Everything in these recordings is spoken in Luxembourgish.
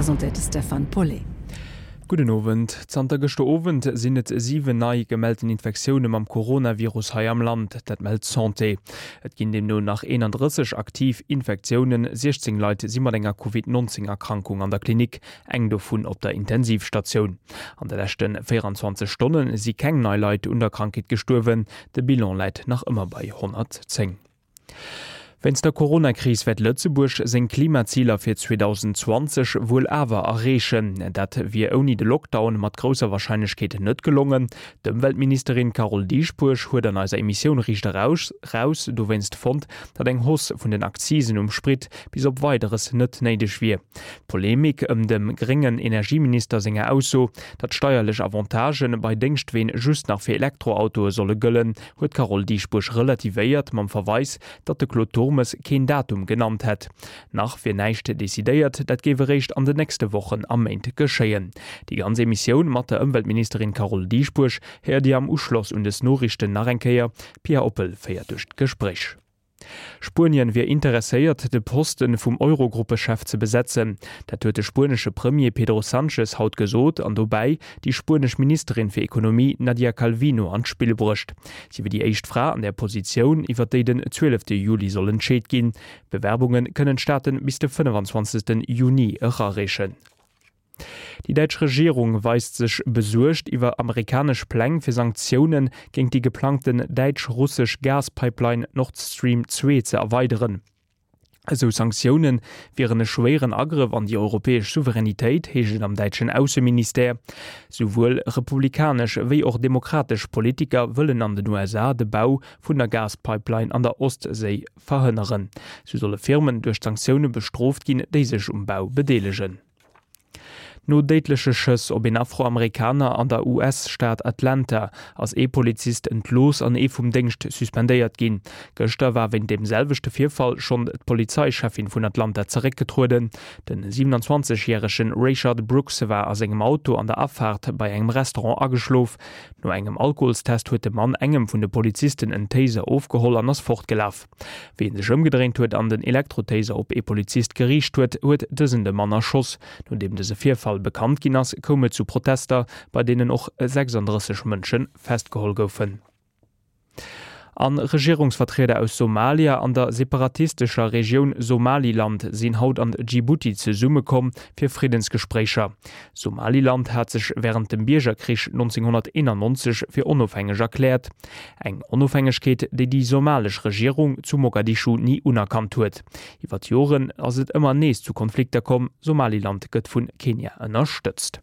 presentéiert de Stefan Paulet. Gudden Owend. Zanter gëschter Owend sinn et 7 nei gemellten Infektioune mam Coronavirus hei am Land, dat mellt d'Santé. Et ginn deemno nach 31 aktiv Infektiounen, 16 Leit si mat enger Covid 19 Erkrankung an der Klinik, eng dovun op der Intensivstatioun. An de leschte 24 Stonne si keng nei Leit un der Krankheet gestuerwen, de Bilan läit nach ëmmer bei 110. Wéinst der Coronakris wäert Lëtzebuerg seng Klimaziler fir 2020 wuel awer erreechen. Dat wier ouni de Lockdown mat grousser Warscheinlechkeet net gelongen. D'Ëmweltministerin Carole Dieschbourg huet an eiser Emissioun Riicht Eraus Raus dowéinst fonnt, datt eng Hausse vun den Akzisen um Sprit bis op Weideres net néideg wier. D'Polemik ëm dem gréngen Energieminister senger Ausso, datt steierlech Avantagë bei Déngschtween just nach fir Elektroautoe solle gëllen, huet d'Carole Dieschbourg relativéiert mam Verweis, datt de Claude Turmes keen Datum genannt hätt. Nach wier näischt decidéiert, dat géif eréischt an den nächste Wochen a Méint geschéien. Déi ganz Emissioun mat der Ëmweltministerin Carole Dieschbourg héiert Dir am Uschloss un des Noriichten nach eng Kéier. D'Pia Oppel féiert duerch d'Gespréich. Spuenien wier interesséiert, de Poste vum Eurogruppechef ze besetzen. Dat huet de spuenesche Premier Pedro Sanchez haut gesot an dobäi déi spuenesch Ministerin fir Ekonomie Nadia Calvino an d'Spill bruecht. Si wier déi éischt Fra an där Positioun, iwwer déi den 12 Juli soll entscheet ginn. Bewerbunge kënnen d'Staate bis de 25 Juni erareechen. Déi däitsch Regierung weist sech besuergt iwwer amerikanesch Pläng fir Sanktioune géint déi geplangten däitsch-russesch Gaspipeline Nord Stream 2 ze erweideren. Esou Sanktioune wieren e schwéieren Agrëff an déi europäesch Souveränitéit, heescht et am däitschen Ausseministère. Souwuel republikanesch wéi och demokratesch Politiker wëllen an den USA de Bau vun der Gaspipeline an der Ostséi verhënneren. Sou solle Firmen duerch d'Sanktioune bestrooft ginn, déi sech um Bau bedeelegen. No déidleche Schëss op een Afroamerikaner an der US-Stad Atlanta ass ee Polizist entlooss an ee vum Déngscht suspendéiert ginn. Gëschter war wéint deem selwechte Virfall schonn d'Polizeicheffin vun Atlanta zeréckgetrueden. De 27 järege Rayshard Brooks war a sengem Auto an der Afaart bei engem Restaurant ageschlof. No engem Alkoholstest huet de Mann engem vun de Polizisten en Taser ofgeholl an ass fortgelaf. Wéi en sech ëmgedréint huet an den Elektrotaser op ee Polizist geriicht huet, huet dësen de Mann erschoss. Nodeem dëse Virfall bekannt ginn ass, koum et zu Protester, bei deenen och 36 Mënsche festgeholl goufen. A Regierungsvertrieder aus Somalia an der separatistescher Regioun Somaliland sinn haut an Djibouti zesummekomm fir Friddensgespréicher. Somaliland hat sech wärend dem Biergerkrich 1991 fir onofhängeg erkläert. Eng Onofhängegkeet, déi déi somalesch Regierung zu Mogadischu ni unerkannt huet. Iwwer d'Joren ass et ëmmer nees zu Konflikter komm. Somaliland gëtt vu Kenia ënnerstëtzt.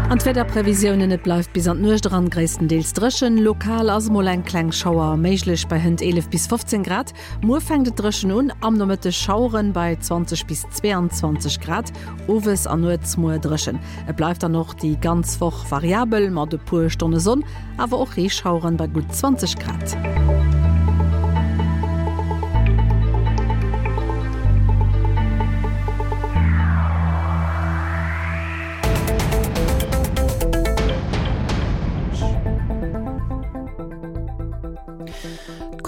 An d'Wiederprevisiounen, Et bleift bis an d'Nuecht eran gréisstendeels dréchen, lokal ass mol eng kleng Schauer méiglech bei hënt 11 bis 15 Grad. Muer fänkt et dréchen un, am Nomëtteg Schaueren bei 20 bis 22 Grad. Owes an nuets muer dréchen. Et bleift dann och déi ganz Woch variabel mat e puer Stonne Sonn, awer och Reeschaueren bei gutt 20 Grad.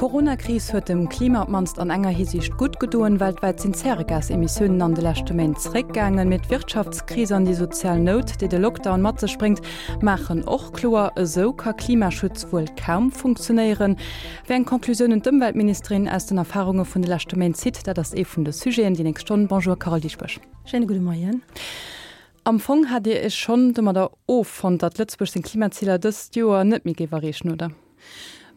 D'Coronakris huet dem Klima op d'mannst an enger Hisiicht gutt gedoen, Weltwäit sinn d'Zäregasemissiounen an de leschte Méint zeréckgaangen. Mee d'Wirtschaftskris an déi sozial Nout, déi de Lockdown mat sech bréngt, maachen och kloer, Esou ka Klimaschutz wuel kaum funktionéieren. Wéi eng Conclusiounen d'Ëmweltministerin aus den Erfarunge vun de leschte Méint zitt, dat ass ee vun de Sujeten déi nächst Stonn. Bonjour Carole Dieschbourg. Schéine gudde Moien. Am Fong hat Dir Iech schonn domadder offonnt, datt Lëtzebuerg seng Klimaziler dëst Joer net méi géif erreechen, oder?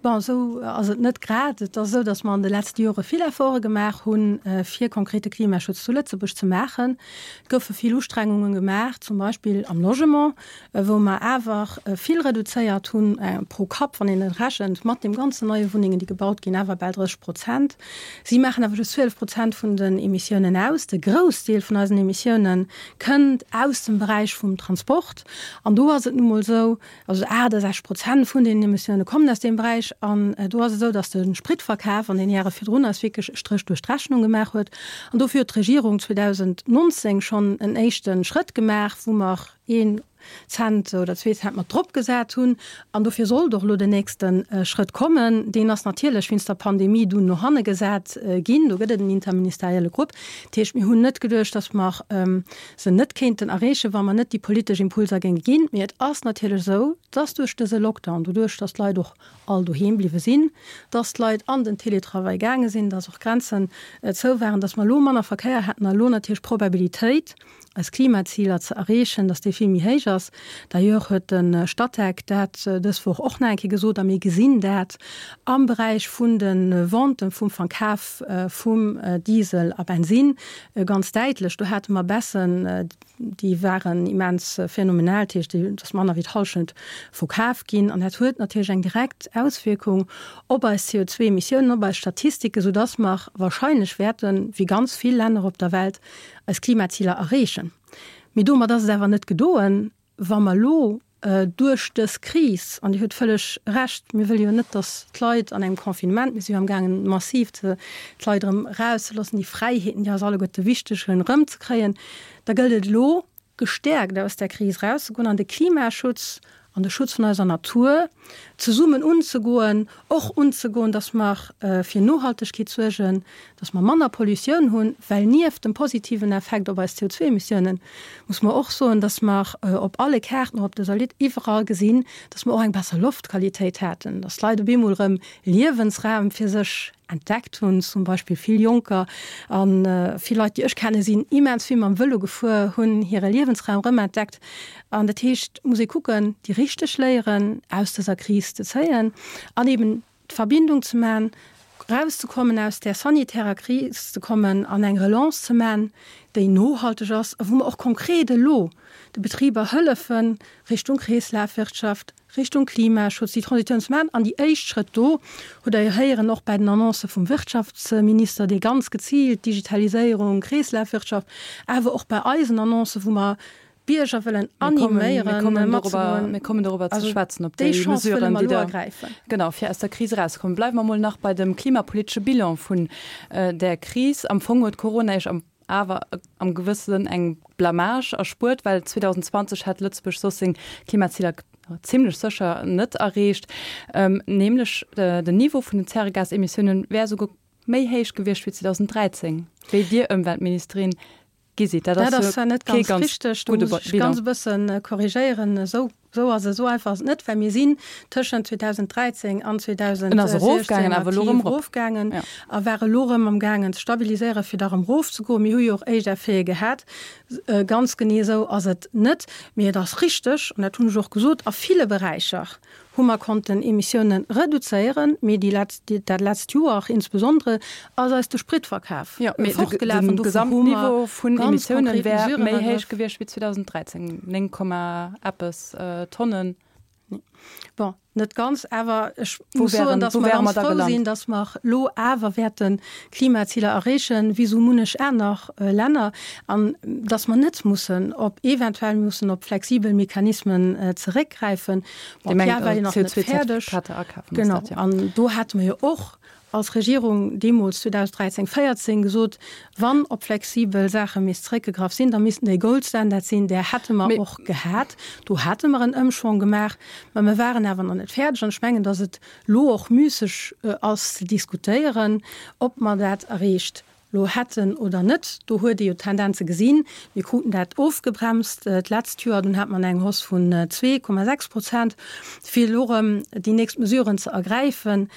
Bon, esou ass et net grad. Et ass esou, datt mer an de letzte Jore vill Efforte gemaach hunn, fir konkrete Klimaschutz zu Lëtzebuerg ze maachen. Et goufe vill Ustrengungen gemaach, zum Beispill am Logement, wou mer awer vill reduzéiert hunn, pro Kapp, wann een et rechent, mat deem ganzen neie Wunnengen, déi gebaut ginn, awer bal 30 Prozent. Si maachen awer just 12 Prozent vun den Emissiounen aus. De Groussdeel vun eisen Emissiounen kënnt aus dem Beräich vum Transport. An do ass et nu mol esou, Also 68 Prozent vun deenen Emissioune kommen aus deem Beräich. An do ass et esou, datt de Spritverkaf an den Jahre virdrun eis wierklech e Stréch duerch d'Rechnung gemaach huet. An dofir huet d'Regierung 2019 schonn en éischte Schrëtt gemaach, wou mer een. Cent oder zwee Cent mat drop gesat hunn. An dofir sollt och elo den nächste Schrëtt kommen. Deen ass natierlech wéinst der Pandemie dunn no hanne gesat ginn. Do gëtt et en interministerielle Grupp. Dat heescht, mir hunn net geduecht, datt mer se net kéinten erreechen, wa mer net déi politesch Impulser géinge ginn. Mee et ass natierlech esou, datt duerch dëse Lockdown, doduerch datt d'Leit och all doheem bliwwe sinn, datt d'Leit an den Télétravail gaange sinn, datt och Grenzen zou waren, datt mer elo manner Verkéier hätten a elo natierlech d'Probabilitéit, eis Klimaziler ze erreechen, datt déi vill méi héich ass. D'ailleurs huet de Statec dat dës Woch och nach eng Kéier gesot a mir gesinn dat am Beräich vun de Venten, vum Verkaf vum Diesel a Bensinn ganz däitlech. Do hate mer Baissen, déi waren immens phänomenal, dat heescht, et ass manner wéi d'Hallschent verkaf ginn an dat huet natierlech eng direkt Auswierkung op eis CO2-Emissiounen, op eis Statistiken, soudass mer wahrscheinlech wäerten, wéi ganz vill Länner op der Welt, eis Klimaziler erreechen. Mee domat ass et awer net gedoen, wa mer elo duerch dës Kris, an Dir hutt vëlleg Recht, mir wëlle jo net, datt d'Leit an engem Confinement, mir si jo amgaangen massiv d'Leit erëm erauszeloossen, déi Fräiheeten, déi eis alleguerte wichteg sinn, erëmzekréien, da gëllt et elo, gestäerkt aus där Kris erauszegoen an de Klimaschutz an de Schutz vun eiser Natur zesummen unzegoen, och unzegoen, dass mer fir Nohaltegkeet suergen, dass mer manner Pollutioun hunn, well nieft dem positiven Effekt op eis CO2-Emissiounen muss mer och soen, dass mer op alle Kaarten, och op dëser Linn, iwwerall gesinn, dass mer och eng besser Loftqualitéit haten, dass d'Leit op eemol erëm Liewensraum fir sech entdeckt hunn, zum Beispill vill Jonker a vill Leit, déi ech kennen, sinn immens vill mam Vëlo gefuer, hunn hire Liewensraum erëm entdeckt. An dat heescht, et muss ee kucken, déi richteg Léieren aus dëser Kris ze zéien an eben d'Verbindung ze man, erauszekommen aus där sanitärer Kris ze kommen an eng Relance ze man, déi nohalteg ass a wou mer och konkret elo de Betriber hëllefen, Richtung Kreeslafwirtschaft, Richtung Klimaschutz déi Transitioun ze maachen. An déi éischt Schrëtt do hutt Der jo héieren, och bäi den Annoncë vum Wirtschaftsminister, dee ganz geziilt Digitaliséierung, Kreeslafwirtschaft, awer och bei eisen Annoncen, wou mer d'Bierger wëllen animéieren, matzegoen. Mir kommen dorobber ze schwätzen, op déi Mesuren, déi Der, genau, fir aus der Kris erauszekommen. Bleiwe mer emol nach bei dem klimapolitesche Bilan vun där Kris. Am Fong huet Corona Iech am awer am gewësse Sënn eng Blamage erspuert, well 2020 hätt Lëtzebuerg soss seng Klimaziler zimlech sécher net erreecht. Nämlech den Niveau vun den Zäregasemissiounen wär esouguer méi héich gewiescht wéi 2013, wéi Dir Ëmweltministerin gi sidd. Dat ass jo net ganz richteg, do muss ech ganz e bësse korrigéieren. Esou Esou ass et, esou einfach ass et net, well mir sinn tëschent 2013 an 2016 aktiv erofgaangen a ware elo erëm amgaangen ze stabiliséieren, fir da erëm erofzegoen. Mir hu jo och éischt Effete gehat. Ganz genee esou ass et net, mee et ass richteg, an dat hunn ech och gesot, a ville Beräicher hu mer konnten Emissiounen reduzéieren, mee déi letzt, dat letzt Joer insbesondere ass eis de Spritverkaf fortgelaf an dofir hu mer ganz konkret Mesuren ergraff. Méi héich gewiescht wéi 2013, 9, eppes Tonnen. Bon, net ganz, awer ech muss soen, datt mer ganz frou sinn, datt mer elo awer wäerte Klimaziler erreechen, wéi esou munnech aner Länner, an datt mer net mussen op, eventuell mussen op flexibel Mechanismen zeréckgräifen. Bon, d'Jahr war jo nach net fäerdeg. Genau, an do hate mer jo och als Regierung deemools 2013, 14 gesot, wann op flexibel Saache misst zréckgegraff sinn, da missten déi Gold Standard sinn. Där hätte mer och gehat. Do hate mer en Ëmschwong gemaach, mä mer waren awer nach net fäerdeg. An ech mengen, datt et elo och müsseg ass ze diskutéieren, ob mer dat erreecht elo hätten oder net. Do huet ee jo d'Tendenze gesinn. Mir kruten dat ofgebremst d'letzt Joer, dunn hat mer eng Hausse vun 2,6 Prozent, fir elo erëm déi nächst Mesuren ze ergräifen.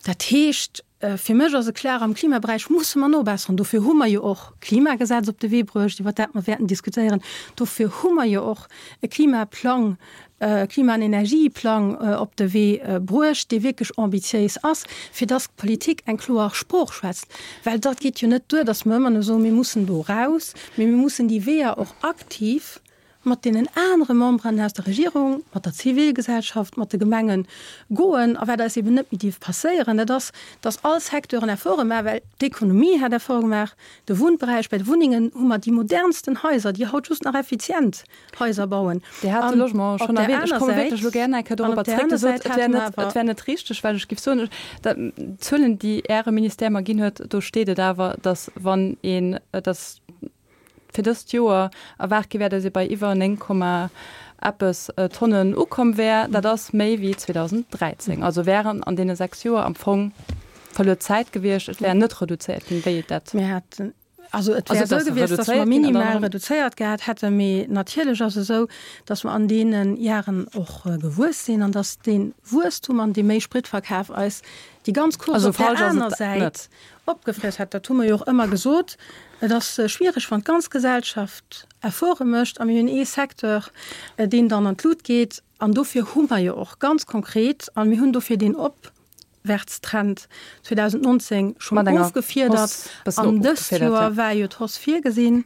Dat heescht, fir mech ass et klar, am Klimaberäich musse mer nobesseren. Dofir hu mer jo och d'Klimagesetz op de Wee bruecht, iwwert dat mer wäerten diskutéieren. Dofir hu mer jo och e Klimaplang, e Klima an Energieplang op de Wee bruecht, dee wierklech ambitiéis ass, fir dass d'Politik eng kloer Sprooch schwätzt. Well dat geet jo net duer, dass mer ëmmer nëmme soen, mir mussen do eraus, mee mir mussen déi Weeër och aktiv mat deenen anere Memberen aus der Regierung, mat der Zivilgesellschaft, mat de Gemenge goen. A wat eis eben net méi dierf passéieren, dat ass, dass all Secteuren Efforte maachen, well d'Ekonomie hat Efforte gemaach, de Wunnberäich, bei de Wunnengen hu mer déi modernsten Haiser, déi haut just nach effizient Haiser bauen. Dir hat de Logement schonn erwähnt. Ech komme wierklech elo gär nach eng Kéier dorobber zréck. Dir sot, et wär net, et wär net richteg, well ech géif soen, dat, d'Zuelen, déi Äre Ministère mer ginn huet, do steet et awer, dass wann een, dass, fir dëst Joer erwaart gi wär, datt ee bei iwwer 9, Komma. Eppes Tonnen ukomm wär. Dat ass méi wéi 2013. Also wären an deene 6 Joer am Fong verluer Zäit gewiescht. Et wär net reduzéiert ginn, wéi et dat. Mir haten, also et wär esou gewiescht, datt mer minimal reduzéiert gehat hätten. Mee natierlech ass et esou, datt mer an deene Jaren och gewuess sinn an datt dee Wuesstum an dee méi Spritverkaf eis déi ganz Course op där aner Säit opgefriess hätt. Dat hu mer jo och ëmmer gesot. Et ass schwiereg, wann d'ganz Gesellschaft Efforte mécht a mir hunn ee Secteur, deen dann an d'Lut geet. An dofir hu mer jo och ganz konkret, a mir hunn dofir deen Opwärtstrend 2019 schonn ofgefiedert, an dëst Joer war jo d'Hausse virgesinn,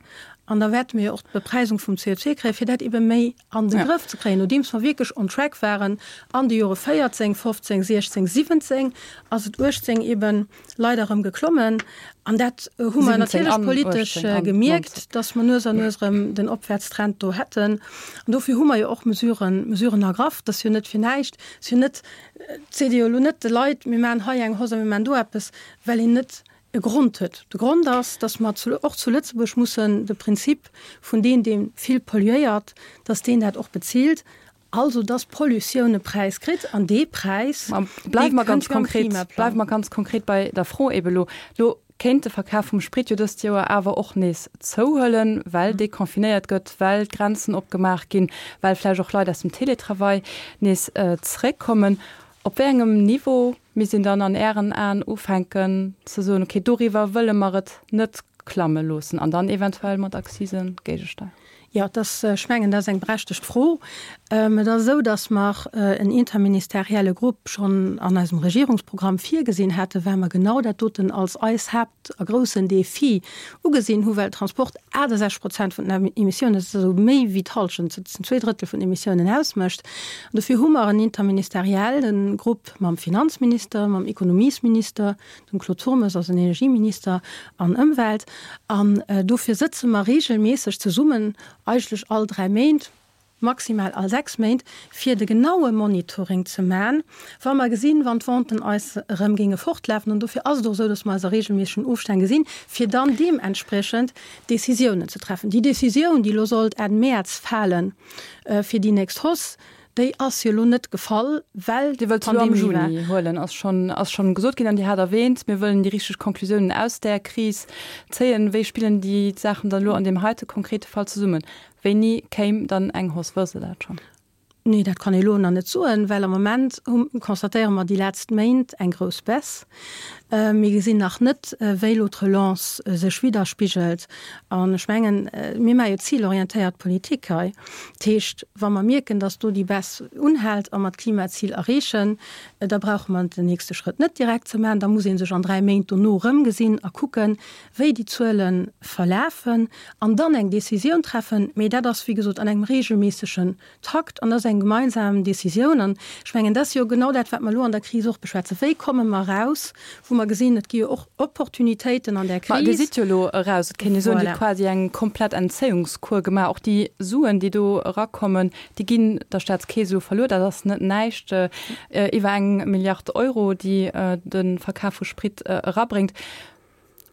an da wäerte mir jo och d'Bepreisung vum CO2 kréien, fir dat ebe méi an de Grëff ze kréien. Nodeems mer wierklech on track waren an de Jore 14, 15, 16, 17, ass et 18 eben leider erëm geklommen. An dat hu mer natierlech politesch gemierkt, dass mer nues an nues erëm den Opwärtstrend do hätten. An dofir hu mer jo och Mesuren, Mesuren ergraff. Dat ass jo net fir näischt. Et ass jo net, et seet ee jo elo net de Leit, mir maachen hei eng Hausse a mir maachen do eppes, well een net e Grond huet. De Grond ass, dass mer och zu Lëtzebuerg mussen de Prinzip vun deen, dee vill polluéiert, dass deen dat och bezilt, also dass d'Pollutioun e Präis kritt an dee Präis, dee kënnt jo am Klimaplang. Bleiwe mer ganz konkret bei der Fro ebe lo. Lo kéint de Verkaf vum Sprit jo dëst Joer awer och nees zouhuelen, well deconfinéiert gëtt, well d'Grenzen opgemaach ginn, well vläicht och Leit aus dem Teletravail nees zeréckkommen. Op wéi engem Niveau misst een dann an Ären Aen ufänken ze soen, okay, doriwwer wëlle mer et net klamme loossen an dann eventuell mat Accisen géigesteieren? Jo, et ass, ech mengen, dat ass eng berechtegt Fro. Et ass esou, datt mer en interministerielle Grupp schonn an eisem Regierungsprogramm virgesinn haten, well mer genau dat doten als eis Haapt a groussen Defi ugesinn hu, well Transport 68 Prozent vun den Emissiounen, dat ass also méi wéi d'Hallschent, dat sinn zwee Drëttel vun den Emissiounen ausmécht. An dofir hu mer en interministerielle Grupp mam Finanzminister, mam Ekonomiesminister, dem Claude Turmes als Energieminister an Ëmwelt. An dofir sëtze mer reegelméisseg zesummen, eigentlech all dräi Méint, maximal all 6 Méint, fir de genaue Monitoring ze man, wa mer gesinn, wann d'Venten eis erëm géinge fortlafen, an dofir ass et och esou, dass mer eis a regelméissegen Ofstänn gesinn, fir dann deementspriechend Décisiounen ze treffen. Déi Décisioun, déi elo sollt Enn Mäerz falen fir déi nächst Hausse, déi ass jo elo net gefall, well Dir wëllt se elo am d'Pandemie war. Juni huelen, ass schonn, ass schonn gesot ginn. An Dir hat erwähnt, mir wëllen déi richteg Konklusiounen aus där Kris zéien. Wéi spillen déi Saachen dann elo an deem heite konkrete Fall zesummen? Wéini kéim dann eng Hausse? Wësst Der dat schonn? Nee, dat kann ee elo nach net soen, well am Moment constatéiere mer déi letzt Méint eng grouss Baisse. Mir gesinn nach net, wéi elo d'Relance sech widderspigelt. An ech mengen, mir maache jo zilorientéiert Politik hei. Dat heescht, wa mer mierken, datt do déi Baisse unhält a mer d'Klimazil erreechen, da brauche mer den nächste Schrëtt net direkt ze maachen. Da muss ee sech an dräi Méint dono erëmgesinn a kucken, wéi déi Zuele verlafen an dann eng Décisioun treffen. Mee dat ass, wéi gesot, an engem regelméissegen Takt an dat ass eng gemeinsam Décisioun. An ech mengen, dat ass jo genau dat, wat mer elo an der Kris och beschwätzen. Wéi komme mer eraus, wou mer gesinn, et gi jo och Opportunitéiten an där Kris. Ma Dir sidd jo elo eraus. Et kéint ee soen, Dir hutt quasi eng komplett Entzéiungskur gemaach. Och déi Suen, déi do erakommen, déi ginn der Staatskeess elo verluer. Dat ass net näischt, iwwer eng Milliard Euro, déi de Verkaf vu Sprit erabréngt.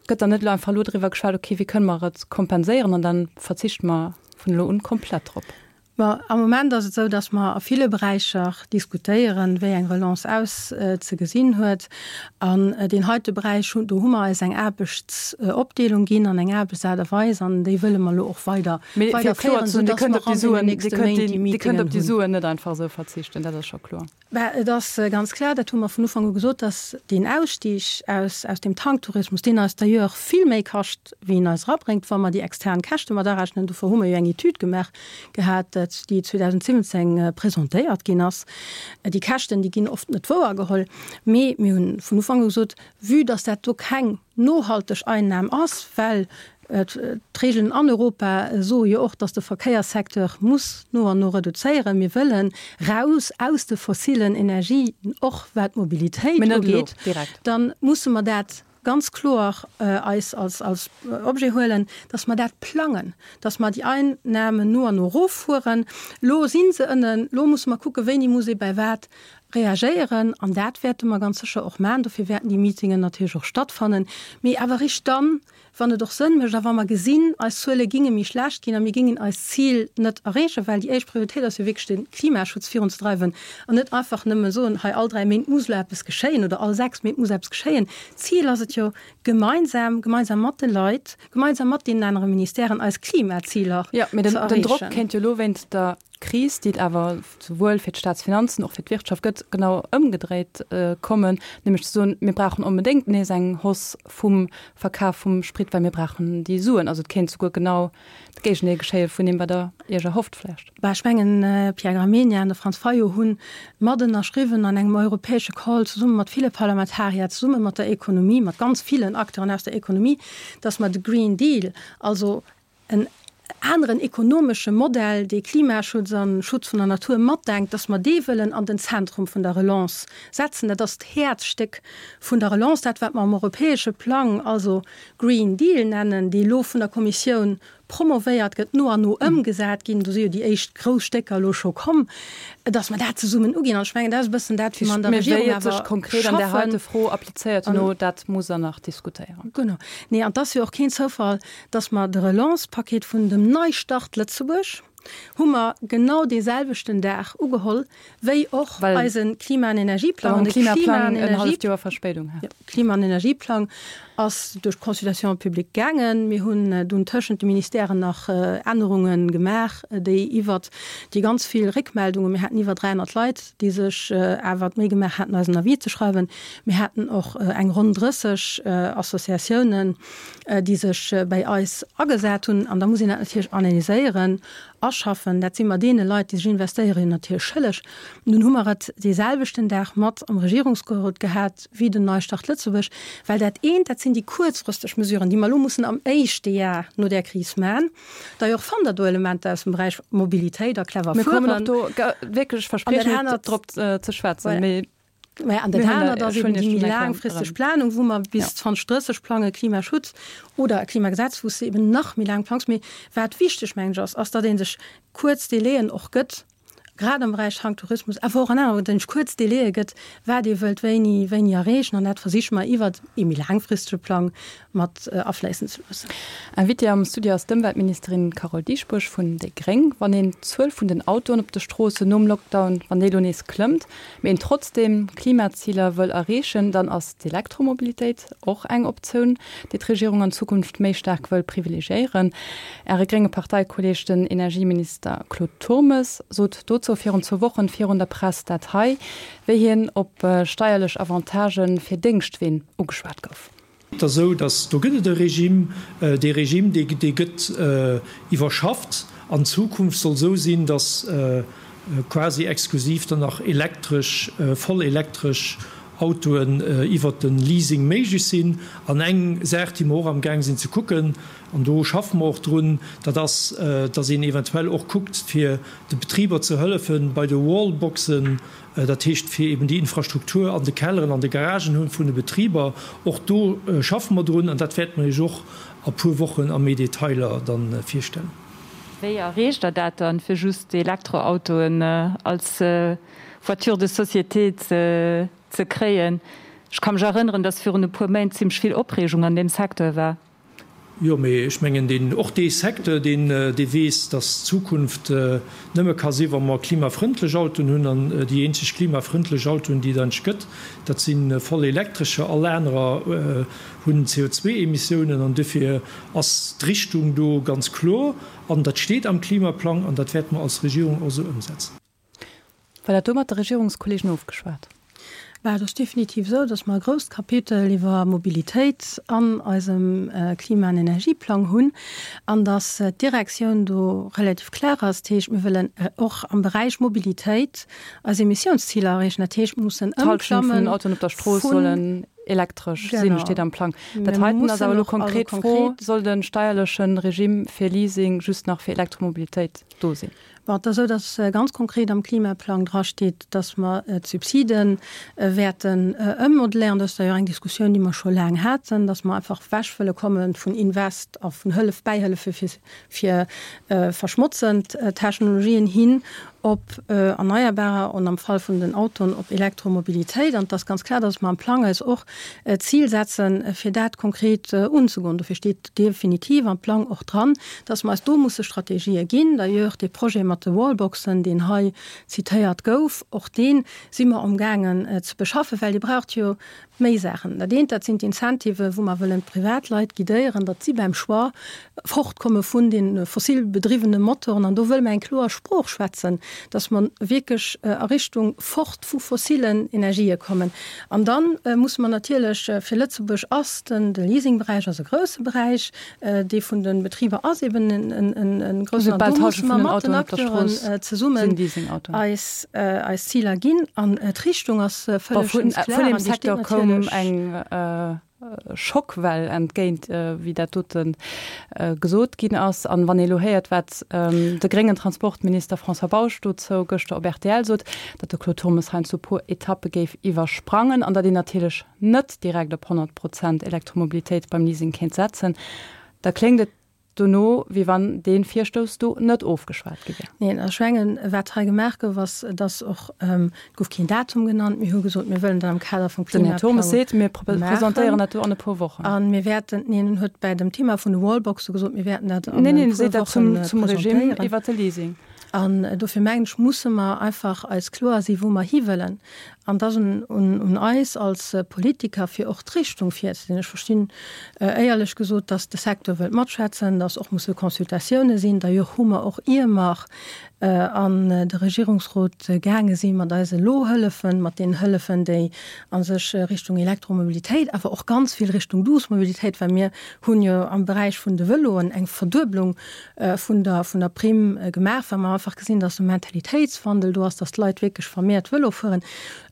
Gëtt dann net elo einfach elo driwwer geschwat, okay, wéi kënne mer et kompenséieren an da verzichte mer vun elo un komplett drop? Bon, am Moment ass et esou, datt mer a ville Beräicher diskutéieren, wéi eng Relance auszegesinn huet. An deen heite Beräich, do hu mer eis eng Aarbechtsopdeelung ginn an eng Aarbechtsaart a Weis an déi wëlle mer elo och weider Mee fir kloer ze soen, Dir kënnt op déi Suen, Dir kënnt op déi Suen net einfach esou verzichten, dat ass scho kloer. Bah, et ass ganz klar, dat hu mer vun Ufank u gesot, dass deen Ausstig aus, aus dem Tanktourismus, deen eis d'ailleurs vill méi kascht, wéi en eis erabréngt, wa mer déi extern Käschte mat arechnen, dofir hu mer jo eng Etüd gemaach gehat, déi 2017 presentéiert ginn ass. Déi Käschten, déi ginn oft net wouergeholl, mee mir hunn vun Ufank u gesot, vue dass dat do keng nohalteg Einnam ass, well d'Regeln an Europa soe jo och, dass de Verkéierssecteur muss no an no reduzéieren. Mir wëllen raus aus de fossilen Energien, och wat d'Mobilitéit ugeet. Da musse mer dat ganz kloer eis als Objet huelen, dass mer dat plangen, dass mer déi Einnahmen no an no eroffueren. Elo si se ënnen, elo musse mer kucken, wéini muss ee bei wat. Reagéieren, an dat wäerte mer ganz sécher och maachen. Dofir wäerten déi Meetingen natierlech och stattfannen, mee awer eréischt dann, wann et och Sënn mécht a wa mer gesinn, eis Zuele ginge méi schlecht ginn a mir gingen eist Zil net erreechen, well déi éischt Prioritéit ass jo wierklech de Klimaschutz virunzedreiwen an net einfach nëmme soen, hei all 3 Méint muss elo eppes geschéien oder all 6 Méint muss eppes geschéien. D'Zil ass et jo, gemeinsam, gemeinsam mat de Leit, gemeinsam mat deenen anere Ministèren eis Klimaziler ze erreechen. Jo, mee den Drock kéint jo elo wéinst der Kris, déi et awer souwuel fir d'Staatsfinanzen och fir d'Wirtschaft gëtt, genau ëmgedréit kommen, nämlech ze soen, mir brauchen onbedéngt nees eng Hausse vum Verkaf vum Sprit, well mir brauchen déi Suen. Also et kéint souguer genau de Géigendeel geschéie vun deem, wat Der Iech erhofft vläicht. Bah, ech mengen, Pierre Gramegna an de Franz Fayot hu mat ënnerschriwwen an engem europäesche Call zesumme mat ville Parlamentarier, zesumme mat der Ekonomie, mat ganz villen Acteuren aus der Ekonomie, dass mer de Green Deal, also en aneren ekonomesche Modell, dee Klimaschutz a Schutz vun der Natur matdenkt, dass mer dee wëllen an den Zentrum vun der Relance setzen. Dat ass d'Häerzstéck vun der Relance, dat wat mer am europäesche Plang also Green Deal nennen, dee elo vun der Kommissioun promovéiert gëtt, no an no ëmgesat ginn, do si jo déi éischt grouss Stécker elo scho komm, dass mer dat zesummen uginn. An ech mengen, dat ass e bëssen dat, wéi mer an der Regierung awer schaffen. Mee wéi et sech konkret an där heite Fro applizéiert herno, dat muss Der nach diskutéieren. Genau. Nee, an et ass jo och keen Zoufall, dass mer de Relance-Paket vun dem Neistart Lëtzebuerg hu mer genau dee selwechten Dag ugeholl wéi och eise Klima an Energieplang. An de Klima an Energieplang Klima an Energieplang ass duerch d'Consultation publique gaangen. Mir hunn dunn tëschent de Ministèren nach Ännerunge gemaach, déi iwwert déi ganz vill Réckmeldungen, mir haten iwwer 300 Leit, déi sech awer d'Méi gemaach haten, eis en Avis ze schreiwen. Mir haten och eng ronn 30 Associatiounen, déi sech bäi eis agesat hunn. An da muss een dat natierlech analyséieren, aschaffen. Dat si mer deene Leit, déi sech investéieren, jo natierlech schëlleg. Nun hu mer et dee selwechten Dag mat am Regierungsgerot gehat wéi den Neistart Lëtzebuerg, well dat eent, dat sinn déi kuerzfristeg Mesuren, déi mer elo mussen am éischte Jar no där Kris maachen. D'ailleurs fannt Der do Elementer aus dem Beräich Mobilitéit a clever Fueren. Mir kommen och do wierklech, ech verspriechen et, drop ze schwätzen. Mee Mä an dat anert ass eben déi méi laangfristeg Planung, wou mer bis 2030 plangen, Klimaschutz oder e Klimagesetz, wou s de eben nach méi laang plangs. Mee wat wichteg, mengen ech, ass, ass, datt ee sech kuerz Délaiën och gëtt, grad am Beräich Tanktourismus, awer och an anere, datt ee sech kuerz Délaië gëtt, wat ee wëllt wéini, wéini erreechen. An dat versiche mer iwwert ee méi laangfristege Plang mat afléissen ze loossen. Invitée am Studio ass d'Ëmweltministerin Carole Dieschbourg vun déi gréng. Wann een d'Zuel vun den Autoen op de Stroossen nom Lockdown, wann déi elo nees klëmmt, mee een trotzdeem d'Klimaziler wëll erreechen, dann ass d'Elektromobilitéit och eng Optioun, déi d'Regierung an Zukunft méi staark wëll privilegiéieren. Äre grénge Parteikolleeg, den Energieminister Claude Turmes, sot dozou virun zwou Wochen virun der Press dat hei, wéi hien op steierlech Avantagë fir Déngschtween ugeschwat gouf. Et ass esou, datt do gëtt et e Regime, dee Regime, dee dee gëtt iwwerschafft. An Zukunft soll esou sinn, datt quasi exklusiv dann nach elektresch, voll elektresch Autoen iwwert de Leasing méiglech sinn. An eng Saach, déi mer och amgaang sinn ze kucken, an do schaffe mer och drun, dat ass, datt een eventuell och kuckt, fir de Betriber ze hëllefen bei de Wallboxen, Dat heescht, fir eben déi Infrastruktur an de Kelleren, an de Garagen hunn vun de Betriber. Och do schaffe mer drun an dat wäerte mer Iech och a puer Wochen a méi Detailer da virstellen. Wéi erreecht Der dat dann, fir just Elektroautoen als Voiture de société ze kréien? Ech ka mech erënneren, dass virun e puer Méint zimlech vill Opreegung an deem Secteur war. Jo, mee ech mengen, deen, och dee Secteur, deen, dee weess, dass d'Zukunft nëmme ka si wa mer klimafrëndlech Autoen hunn. An déi eenzeg klimafrëndlech Autoen, déi et eigentlech gëtt, dat si voll elektrescher. All anerer hunn CO2-Emissiounen. An duerfir ass d'Richtung do ganz kloer. An dat steet am Klimaplang an dat wäerte mer als Regierung och esou ëmsetzen. War dat do mat de Regierungskollegen ofgeschwat? Bah, et ass definitiv esou, datt mer e grousst Kapitel iwwer Mobilitéit an eisem Klima an Energieplang hunn an datt d'Direktioun do relativ klar ass. Dat heescht, mir wëllen och am Beräich Mobilitéit eis Emissiounsziler erreechen. Dat heescht, mir mussen ëmklammen vun. D'Hallschent vun den Autoen op der Strooss sollen elektresch sinn, steet am Plang. Dat heiten ass awer elo konkret d'Fro, Soll de steierleche Regime fir Leasing just nach fir Elektromobilitéit do sinn? Bon, et ass esou, datt ganz konkret am Klimaplang drasteet, datt mer d'Subside wäerten ëmmodelléieren. Dat ass d'ailleurs eng Diskussioun, déi mer scho laang haten, datt mer einfach ewech wëlle komme vun Invest a vun Hëllef, Bäihëllefe fir, fir verschmotzend Technologien hin. op Erneierbarer an am Fall vun den Autoen op Elektromobilitéit. An et ass ganz kloer, dass mer am Plang eis och d'Zil setzen, fir dat konkret unzegoen. Dofir steet definitiv am Plang och dran, dass mer eis do musse Strategië ginn. D'ailleurs, dee Projet mat de Wallboxen, deen hei zitéiert gouf, och dee si mer amgaangen ze beschaffen, well Dir braucht jo Méi Saachen. Dat eent, dat sinn d'Incentivë wou mer wëllen d'Privatleit guidéieren, datt si beim Choix fortkomme vun de fossil bedriwwene Motoren. An do wëlle mer eng kloer Sprooch schwätzen, datt mer wierklech a Richtung fort vu fossillen Energië kommen. An da musse mer natierlech, fir Lëtzebuerg ass den, de Leasingberäich ass e grousse Beräich, dee vun de Betriber ass eben e groussen. An do musse mer mat den Acteuren zesummen eis, eis Ziler ginn. An d'Richtung ass vëlleg Vun klar. Vun deem Secteur koum eng Schockwell entgéint, wéi dat dote gesot ginn ass. An wann ee elo héiert, wat de gréngen Transportminister François Bausch dozou gëschter op rtl sot, datt de Claude Turmes heiansdo e puer Etappe géif iwwersprangen an datt een natierlech net direkt op 100 Prozent Elektromobilitéit beim Leasing kéint setzen, da kléngt et dono, wéi wann dee Virstouss do net ofgeschwat gi wär. Neen, ech mengen, wat hei gemaach gouf, ass, dass och, et gouf keen Datum genannt, mir hu gesot, mir wëllen dat am Kader vum Den Här Turmes Klimaplang seet, mir presentéieren dat do an e puer Wochen. A mir wäerten, neen, en huet bäi dem Thema vun de Wallboxe gesot, mir wäerten dat an e puer Woche zum Regime iwwert de Leasing. An dofir mengen ech, musse mer einfach eis kloer si wou mer hiwëllen. An et ass un eis als Politiker, fir och d'Richtung virzesinn. Ech verstinn éierlech gesot, datt de Secteur wëllt matschwätzen, datt och musse Consultatioune sinn. D'ailleurs hu mer och, ier mer an de Regierungsrot gaange si mat eise Lohëllefen, mat deenen Hëllefen, déi a sech Richtung Elektromobilitéit, awer och ganz vill Richtung douce Mobilitéit, well mir hunn jo am Beräich vun de Vëloen eng Verdueblung vun der vun der Primm gemaach, well mer einfach gesinn, dass e Mentalitéitswandel do ass, dass d'Leit wierklech vermehrt Vëlo fueren,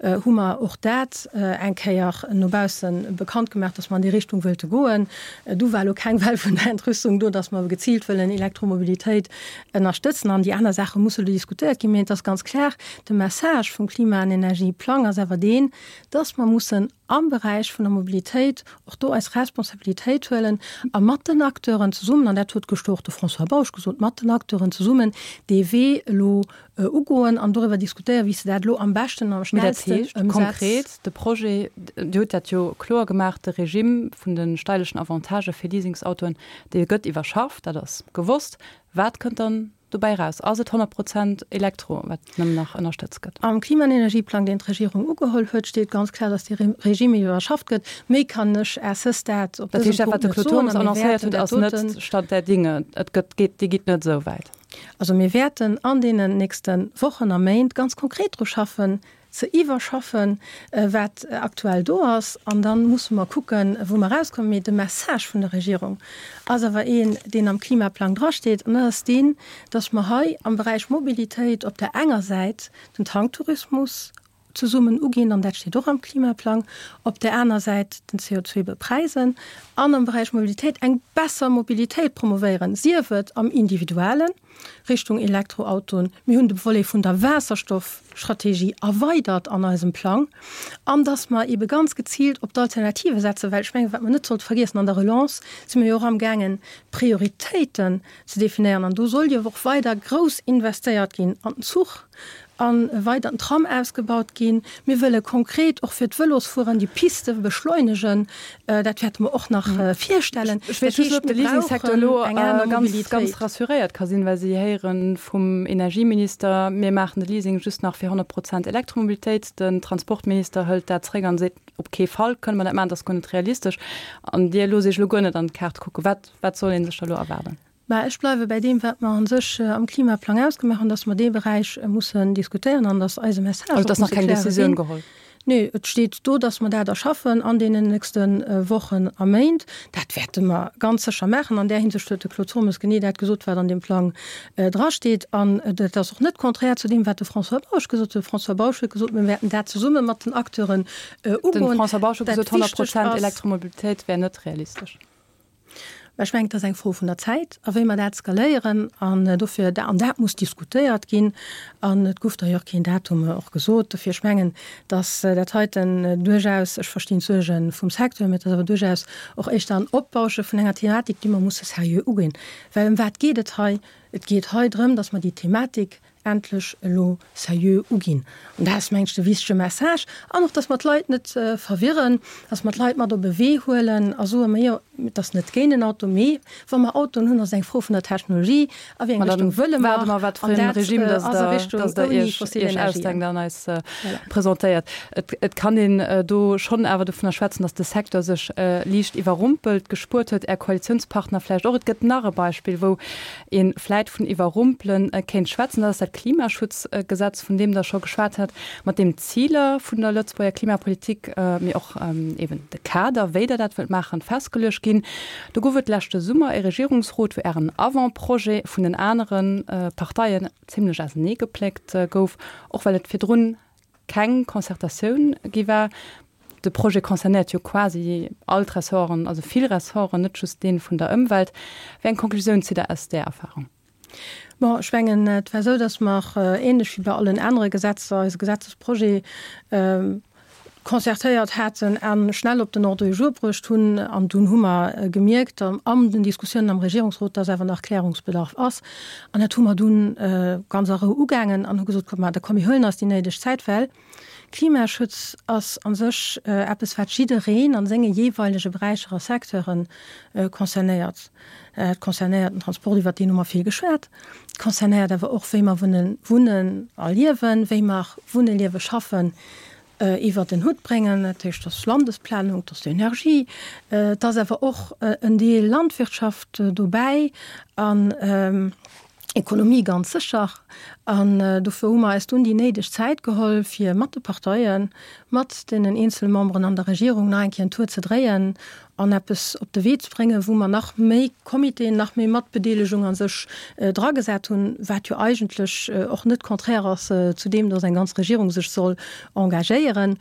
hu mer och dat eng Kéier no bausse bekannt gemaach, dass mer an déi Richtung wëlte goen. Du war elo keng Well vun der Entrüstung do, dass mer geziilt wëllen Elektromobilitéit ënnerstëtzen. An déi aner Saache musse elo diskutéiert ginn. Mee et ass ganz klar, de Message vum Klima an Energieplang ass awer deen, dass mer mussen am Beräich vun der Mobilitéit och do eis Responsabilitéit huelen a mat den Acteuren zesummen, an dat huet gëschter och de François Bausch gesot, mat den Acteuren zesummen dee Wee elo ugoen an doriwwer diskutéieren, wéi s de dat elo am beschten an am schnellsten ëmsetz. Mee dat heescht konkret, de Projet, Dir hutt dat jo kloer gemaach, de Regime vun de steierlechen Avantagë fir Leasingsautoen, dee gëtt iwwerschafft, dat ass gewosst. Wat kënnt dann dobäi eraus? Ass et 100 Prozent Elektro, wat nëmmen nach ënnerstëtzt gëtt? Am Klima an Energieplang, deen d'Regierung ugeholl huet, steet ganz kloer, datt dee Regime iwwerschafft gëtt. Méi kann ech à ce stade op dësem Punkt net soen. Dat heescht, dat, wat de Claude Turmes annoncéiert huet, ass net Stand der Dinge. Et gëtt, geet, Dir gitt net esou wäit. Also mir wäerten an deenen nächste Wochen a Méint ganz konkret dru schaffen, ze iwwerschaffen, wat aktuell do ass, an da musse mer kucken, wou mer erauskommen. Mee de Message vun der Regierung ass awer een, deen am Klimaplang drasteet, an dat ass deen, dass mer hei am Beräich Mobilitéit op der enger Säit den Tanktourismus zesummen uginn, an dat steet och am Klimaplang, op där aner Säit den CO2 bepräisen an am Beräich Mobilitéit eng besser Mobilitéit promovéieren, sief et am Individuellen, Richtung Elektroautoen. Mir hunn de Volet vun der Waasserstoffstrategie erweidert an eisem Plang. An dass mer eebe ganz geziilt op d'Alternative setzen, well ech mengen, wat mer net sollte vergiessen, an der Relance si mer jo och amgaangen, Prioritéiten ze definéieren. An do soll jo och weider grouss investéiert ginn an den Zuch, a weider den Tram ausgebaut ginn. Mir wëlle konkret och fir d'Vëlosfueren déi Piste beschleunegen. Dat wäerte mer och nach virstellen. Ech weess just net, ob de Leasingsecteur elo ganz, ganz rassuréiert ka sinn, well si héiere vum Energieminister, mir maachen de Leasing just nach fir 100 Prozent Elektromobilitéit. Den Transportminister hëlt dat zréck an seet, op kee Fall kënne mer dat maachen, dat ass guer net realistesch. An Dir loosst Iech elo guer net an d'Kaart kucken. Wat, wat soll ee sech da elo erwaarden? Mä ech bleiwe bäi deem, wat mer a sech am Klimaplang ausgemaach hunn, dass mer dee Beräich mussen diskutéieren an dass eise Message och muss e klare sinn. Nee, et steet do, dass mer dat erschaffen an deenen nächste Wochen a Méint. Dat wäerte mer ganz sécher maachen. An där Hinsicht huet de Claude Turmes genee dat gesot, wat an deem Plang drasteet. An dat ass och net konträr zu deem, wat de François Bausch gesot huet. De François Bausch huet gesot, mir wäerten dat zesumme mat den Acteuren ugoen. De François Bausch huet gesot, 100 Prozent Elektromobilitéit wär net realistesch. Mä ech mengen, et ass eng Fro vun der Zäit a wéi mer dat skaléieren. An dofir, an dat muss diskutéiert ginn. An et gouf d'ailleurs keen Datum och gesot. Dofir, ech mengen, datt dat heiten duerchaus, ech verstinn d'Suerge vum Secteur, mä et ass awer duerchaus och éischter en Opbausche vun enger Thematik, déi mer musse seriö uginn. Well ëm wat geet et hei? Et geet hei drëm, datt mer déi Thematik. Endlech elo seriö uginn. An dat ass, mengen ech, de wichtege Message. An och, dass mer d'Leit net verwirren, dass mer d'Leit mat op e Wee huelen a soen, Majo, et ass net géint en Auto, mee wa mer Autoen hunn, ass et eng Fro vun der Technologie, a wéi eng Richtung wëlle mer. An dat ass a Richtung ouni fossil Energien. Presentéiert. Et kann een do schonn awer dovunner schwätzen, dass de Secteur sech liicht iwwerrumpelt gespuert huet, Är Koalitiounspartner vläicht och. Et gëtt nach e Beispill, wou ee vläit vun iwwerrumpele kéint schwätzen, dat ass dat Klimaschutzgesetz, vun deem Der scho geschwat hat, mat deem d'Ziler vun der Lëtzebuerger Klimapolitik, mee och eeben de Kader, wéi Der dat wëllt maachen, festgeluecht ginn. Do gouf et leschte Summer e Regierungsrot, wou Ären Avant-projet vun den anere Parteien zimlech auseneegepléckt gouf, och well et virdrun keng Concertatioun gi war. De Projet concernéiert jo quasi all d'Ressorten, also vill Ressorten, net just dee vun der Ëmwelt. Wéi eng Konklusioun zitt Der aus där Erfahrung? Bon, ech mengen, et war esou, datt mer, ähnlech wéi bei allen anere Gesetzer, eise Gesetzesprojet concertéiert haten a schnell op den Ordre du jour bruecht hunn. An dunn hu mer gemierkt an den Diskussiounen am Regierungsrot, datt awer nach Klärungsbedarf ass. An dat hu mer dunn ganz a Rou ugaangen an hu gesot, Kommt, ma da komm, mir huelen eis déi néideg Zäit, well Klimaschutz ass a sech eppes, wat jiddereen a senge jeeweilege Beräicher a Secteure concernéiert. Et concernéiert den Transport, iwwert deen hu mer vill geschwat. Et concernéiert awer och, wéi mer wunnen a liewen, wéi mer wunnen, liewen, schaffen iwwert en Hutt bréngen. Dat heescht, et ass Landesplanung, et ass d'Energie, et ass awer och en Deel Landwirtschaft dobäi an Ekonomie ganz sécher. An dofir hu mer eis dunn déi néideg Zäit geholl, fir mat de Parteien, mat deenen eenzele Memberen an der Regierung nach eng Kéier en Tour ze dréien an eppes op de Wee ze bréngen, wou mer nach méi Comitéen, nach méi Matbedeelegung a sech dragesat hunn, wat jo eigentlech och net contraire ass zu deem, dass eng ganz Regierung sech soll engagéieren.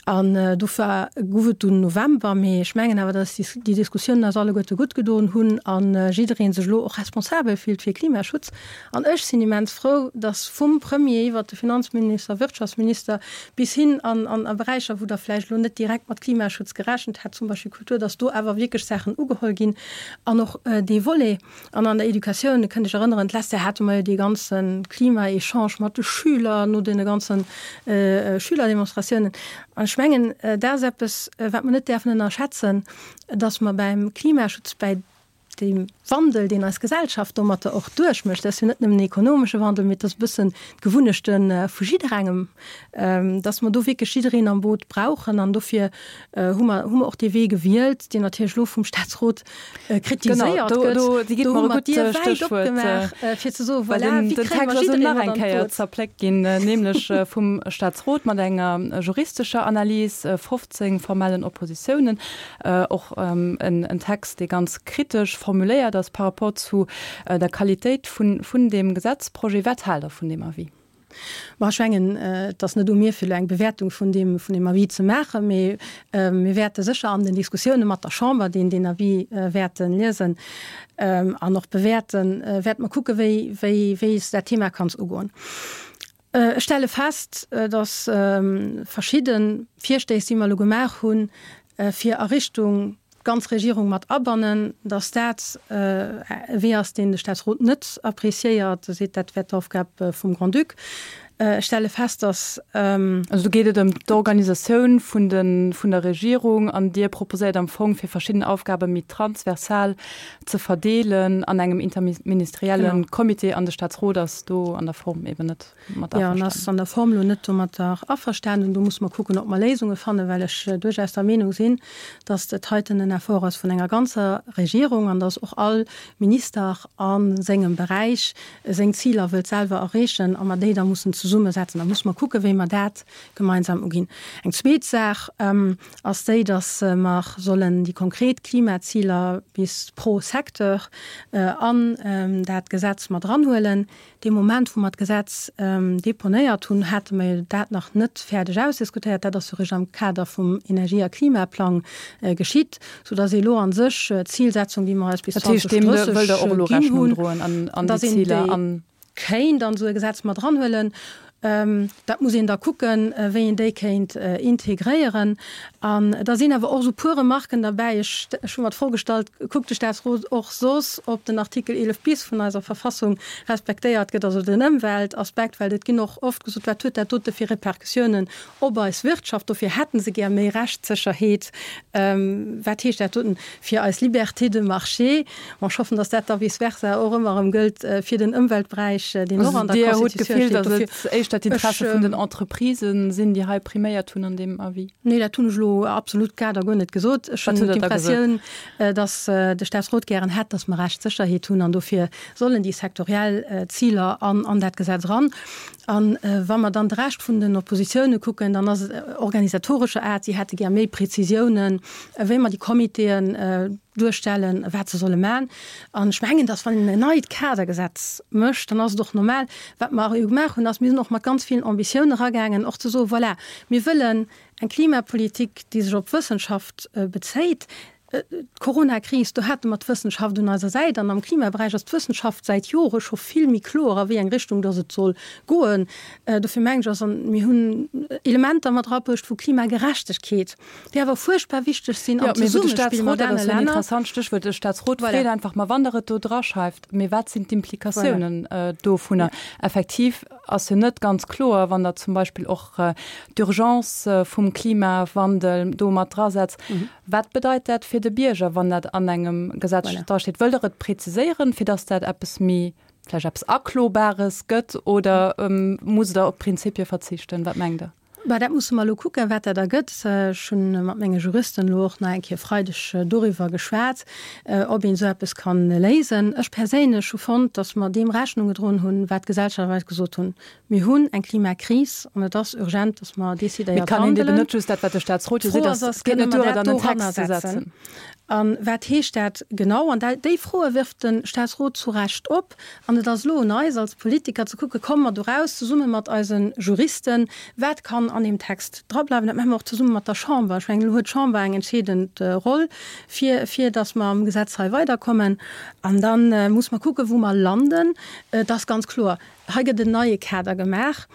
An dofir gouf et dunn November. Mee ech mengen awer, dass déi Diskussiounen eis alleguerte gutt gedoen hunn a jidderee sech elo och responsabel fillt fir Klimaschutz. An ech sinn immens frou, dass vum Premier iwwert de Finanzminister, Wirtschaftsminister bis hin an a Beräicher, wou Der vläicht elo net direkt mat Klimaschutz gerechent hätt, zum Beispill Kultur, dass do awer wierklech Saachen ugeholl ginn an och dee Volet. An an der Educatioun, Dir kënnt Iech erënneren, d'lescht Joer hate mer jo dee ganze Klima-Echange mat de Schüler no deene ganze Schülerdemonstratiounen. An ech mengen, dat ass eppes, wat mer net däerfen ënnerschätzen, dass mer beim Klimaschutz, bäi deem Wandel, deen eis Gesellschaft domatter och duerchmécht, dat ass jo net nëmmen en ekonomesche Wandel, mee et ass e bëssen d'Gewunnechte vu jidderengem, dass mer do wierklech jiddereen am Boot brauchen. An dofir hu mer, hu mer och dee Wee gewielt, deen natierlech elo vum Staatsrot kritiséiert gëtt. Do, do hu mer d'Dier wäit opgemaach, fir ze soen, voilà, wéi kréie mer jiddereen mat an d'Boot? Zerpléckt ginn, nämlech vum Staatsrot mat enger juristescher Analys, 15 formellen Oppositiounen, och en Text, dee ganz kritesch formuléiert ass par rapport zu der Qualitéit vun deem Gesetzprojet. Wat haalt Der vun deem Avis? Ma ech mengen, et ass net u mir, fir elo eng Bewäertung vun deem, vun deem Avis ze maachen, mee mir wäerte sécher an den Diskussioune mat der Chamber, déi deen Avis wäerte liesen an och bewäerten, wäerte mer kucken, wéi, wéi, wéi s dat Thema kanns ugoen. Ech stelle fest, dass verschidde Virstéiss, déi mer elo gemaach hunn, fir a Richtung d'ganz Regierung mat abannen, dass dat e Wee ass, deen de Staatsrot net appréciéiert. E seet, dat wär d'Aufgab vum Grand-Duc. Ech stelle fest, dass. Also do geet et ëm d'Organisatioun vun de, vun der Regierung an Dir proposéiert am Fong, fir verschidden Aufgabe méi transversal ze verdeelen an engem interministerielle Comité an de Staatsrot ass do an der Form eben net. mat averstanen. Jo, en ass an der Form elo net domatter averstanen. Do musse mer kucken, ob mer Léisunge fannen, well ech duerchaus der Meenung sinn, dass dat heiten en Effort ass vun enger ganzer Regierung an dass och all Minister a sengem Beräich seng Ziler wëllt selwer erreechen a mer déi da mussen zesummesetzen. Da musse mer kucken, wéi mer dat gemeinsam uginn. Eng zweet Saach ass déi, dass mer sollen déi konkret Klimaziler bis pro Secteur an dat Gesetz mat eranhuelen. Dee Moment, wou mer d'Gesetz deponéiert hunn, hate mer jo dat nach net fäerdeg ausdiskutéiert. Dat ass jo eréischt am Kader vum Energie a Klimaplang geschitt, soudass ee elo a sech d'Zilsetzung, déi mer eis bis 2030 ginn hunn, dass een déi kéint an esou e Gesetz mat eranhuelen. Dat muss een da kucken, wéi een déi kéint integréieren. An da sinn awer och esou puer Remarken derbäi. Ech, ech hu mer d'Fro gestallt, Kuckt de Statsrot och soss, ob den Artikel 11 bis vun eiser Verfassung respektéiert gëtt, also den Ëmweltaspekt? Well et ginn och oft gesot, Wat huet dat dote fir Repercussiounen op eis Wirtschaft? Dofir hätte se gär méi Rechtssécherheet. Wat heescht dat doten fir eis Liberté de marché? Bon, ech hoffen, datt dat da vice versa och ëmmer erëm gëllt fir den Ëmweltberäich, deen och an der Dir hutt Constitutioun d'Gefill, steet. datt Dofir, et éischter d'Interesse ech, vun den Entreprisë sinn, déi hei priméiert hunn an deem Avis? Nee, dat hunn ech elo absolut grad a guer net gesot. Ech Wat hunn hutt Der da gesot? d'Impressioun, datt de Staatsrot gären hätt, datt mer Rechtssécherheet hunn an dofir sollen déi sektoriell Ziler an an dat Gesetz eran. A wa mer dann de Rescht vun den Oppositioune kucken, dann ass et organisatorescher Aart. Si hätte gär méi Prezisiounen, wéi mer déi Comitéen duerstellen, wat se solle maachen. An ech mengen, dass wann een en neit Kadergesetz mécht, dann ass et och normal, wat mer jo gemaach hunn, ass, mir sinn och mat ganz villen Ambitiounen eragaangen, och ze soen, voilà, mir wëllen eng Klimapolitik, déi sech op d'Wëssenschaft bezéit. D'Coronakris, do hate mer d'Wëssenschaft un eiser Säit. An am Klimaberäich ass d'Wëssenschaft säit Jore scho vill méi kloer, a wéi eng Richtung dass et soll goen. Dofir mengen ech, ass, an mir hunn Elementer mat erabruecht vu Klimagerechtegkeet, déi awer fuerchtbar wichteg sinn am Zesummespill mat anere Länner. Interessant Stéchwuert, de Staatsrot freet einfach, ma wann Der et do draschreift, mee wat sinn d'Implikatiounen dovunner? Effektiv ass jo net ganz kloer, wann Der zum Beispill och d'Urgence vum Klimawandel do mat drasetzt, wat bedeit dat fir de Bierger, wann dat an engem Gesetz drasteet? Wëllt Der et preziséieren, fir datt dat eppes méi vläicht eppes Aklobares gëtt, oder musst Der op Prinzipie verzichten? Wat mengt Der? Bah, dat musse mer elo kucken, wat dat ergëtt. Ech hu mat menge Juristen elo och nach eng Kéier e Freideg doriwwer geschwat, ob een esou eppes ka léisen. Ech perséinlech hu fonnt, datt mer deem Rechnung gedroen hunn, wat d'Gesellschaft eis gesot hunn. Mir hunn eng Klimakris an et ass urgent, datt mer Mee et decidéiert kann een eben handelen. net just dat, wat de Staatsrot jo seet, D'Fro ass, ass, et geet kënne net mer duer, et dat an en Text doranner ze setzen? setzen. A wat heescht dat genau? An déi Froe wirft de Staatsrot zu Recht op. An et ass elo un eis als Politiker ze kucken, Komme mer doraus, zesumme mat eise Juristen, wat kann an deem Text drableiwen? Dat maache mer och zesumme mat der Chamber. Ech mengen, elo huet d'Chamber eng entscheedend Roll, fir, fir datt mer am Gesetz hei weiderkommen. An da muss mer kucken, wou mer landen. Et ass ganz kloer, Hei gëtt en neie Kader gemaach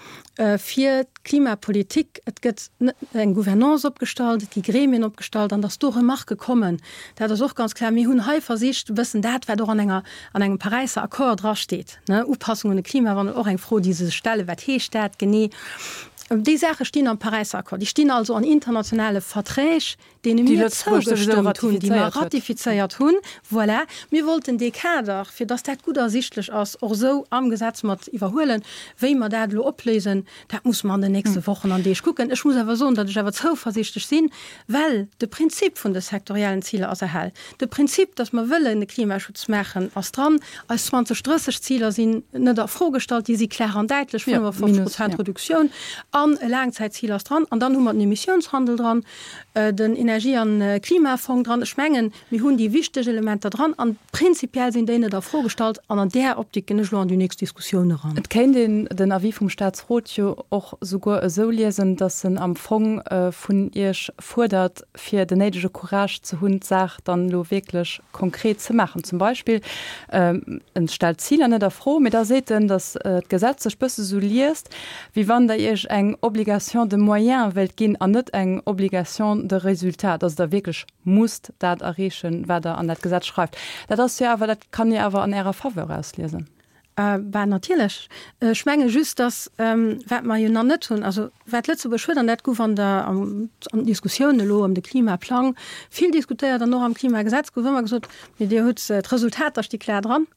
fir d'Klimapolitik. Et gëtt eng Gouvernance opgestallt, et gi Gremien opgestallt an datt do Remarquë kommen, dat ass och ganz kloer. Mir hunn hei versicht e bëssen dat, wat och an enger, an engem Paräisser Accord drasteet, ne, Upassung un de Klimawandel, och eng Fro, déi se sech stellen, Wat heescht dat genee? Déi Saache stinn am Paräisser Accord, déi stinn also an internationale Verträg, deene mir zougestëmmt hunn, déi mer ratifizéiert hunn. Voilà, mir wollten dee Kader, fir dass dat gutt ersichtlech ass, och esou am Gesetz mat iwwerhuelen. Wéi mer dat elo opléisen, dat musse mer an den nächste Wochen an Deeg kucken. Ech muss awer soen, datt ech awer zouversiichtlech sinn, well de Prinzip vun de sektoriellen Ziler ass erhal. De Prinzip, datt mer wëllen de Klimaschutz maachen, ass dran. Eis 2030-Ziler sinn net a Fro gestallt, déi si klar an däitlech, 55 Prozent Reduktioun an e Laangzäitzil ass dran. An dann hu mer den Emissiounshandel dran. den Energie an Klimafong dran. Ech mengen, mir hunn déi wichteg Elementer dran an prinzipiell sinn déi net a Fro gestallt an an där Optik ginn ech elo an déi nächst Diskussioun eran. Et kéint een den Avis vum Statsrot jo och souguer esou liesen, datt en am Fong vun Iech fuerdert, fir den néidege Courage ze hunn, d'Saach dann elo wierklech konkret ze maachen. Zum Beispill, en stellt d'Ziler net a Fro, mee da seet en, datt d'Gesetz sech bësse sou liest, wéi wann Der Iech eng Obligation de moyens wéilt ginn an net eng Obligation de résultat, dass Der wierklech musst dat erreechen, wat Der an dat Gesetz schreift. Dat ass jo awer, dat kann ee awer an Ärer Faveur ausliesen. Bah, natierlech. Ech menge just, dass, wat mer jo nach net hunn, also wat Lëtzebuerg huet, an dat gouf an der, an den Diskussioun elo ëm de Klimaplang vill diskutéiert an och am Klimagesetz gouf ëmmer gesot, mee Dir hutt, d'Resultater sti klar dran.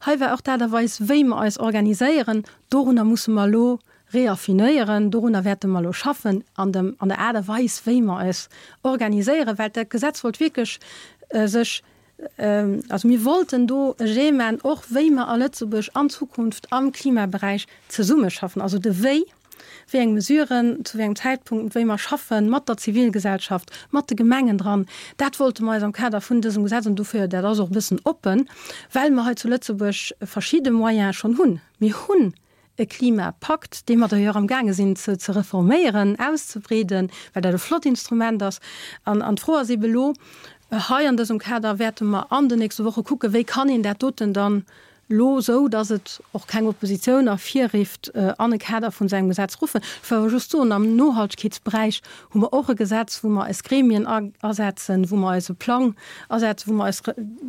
Hei war och d'Aart a Weis, wéi mer eis organiséieren, dorunner musse mer elo reaffinéieren, dorunner wäerte mer elo schaffen, an dem, an der Aart a Weis, wéi mer eis organiséieren, well dat Gesetz wollt wierklech sech, also mir wollten do e Jet maachen, och wéi mer a Lëtzebuerg an Zukunft am Klimaberäich zesummeschaffen, also de Wéi. wéi eng Mesuren, zu wéi engem Zäitpunkt, wéi mer schaffen, mat der Zivilgesellschaft, mat de Gemengen dran. Dat wollte mer eis am Kader vun dësem Gesetz, an dofir, dat ass och e bëssen oppen, well mer hei zu Lëtzebuerg verschidde Moyene schonn hunn. Mir hunn e Klimapakt, dee mer d'ailleurs amgaange sinn ze ze reforméieren, auszebreeden, well dat e flott Instrument ass. An an d'Fro ass eebe elo, hei an dësem Kader wäerte mer an den nächste Woche kucken, wéi kann een dat doten dann. Elo esou, datt et och keng Oppositioun ervirrifft, an e Kader vun esou engem Gesetz ruffen. Ech wëll awer just soen, am Nohaltegkeetsberäich hu mer och e Gesetz, wou mer eis Gremien asetzen, wou mer eise Plang asetzen, wou mer eis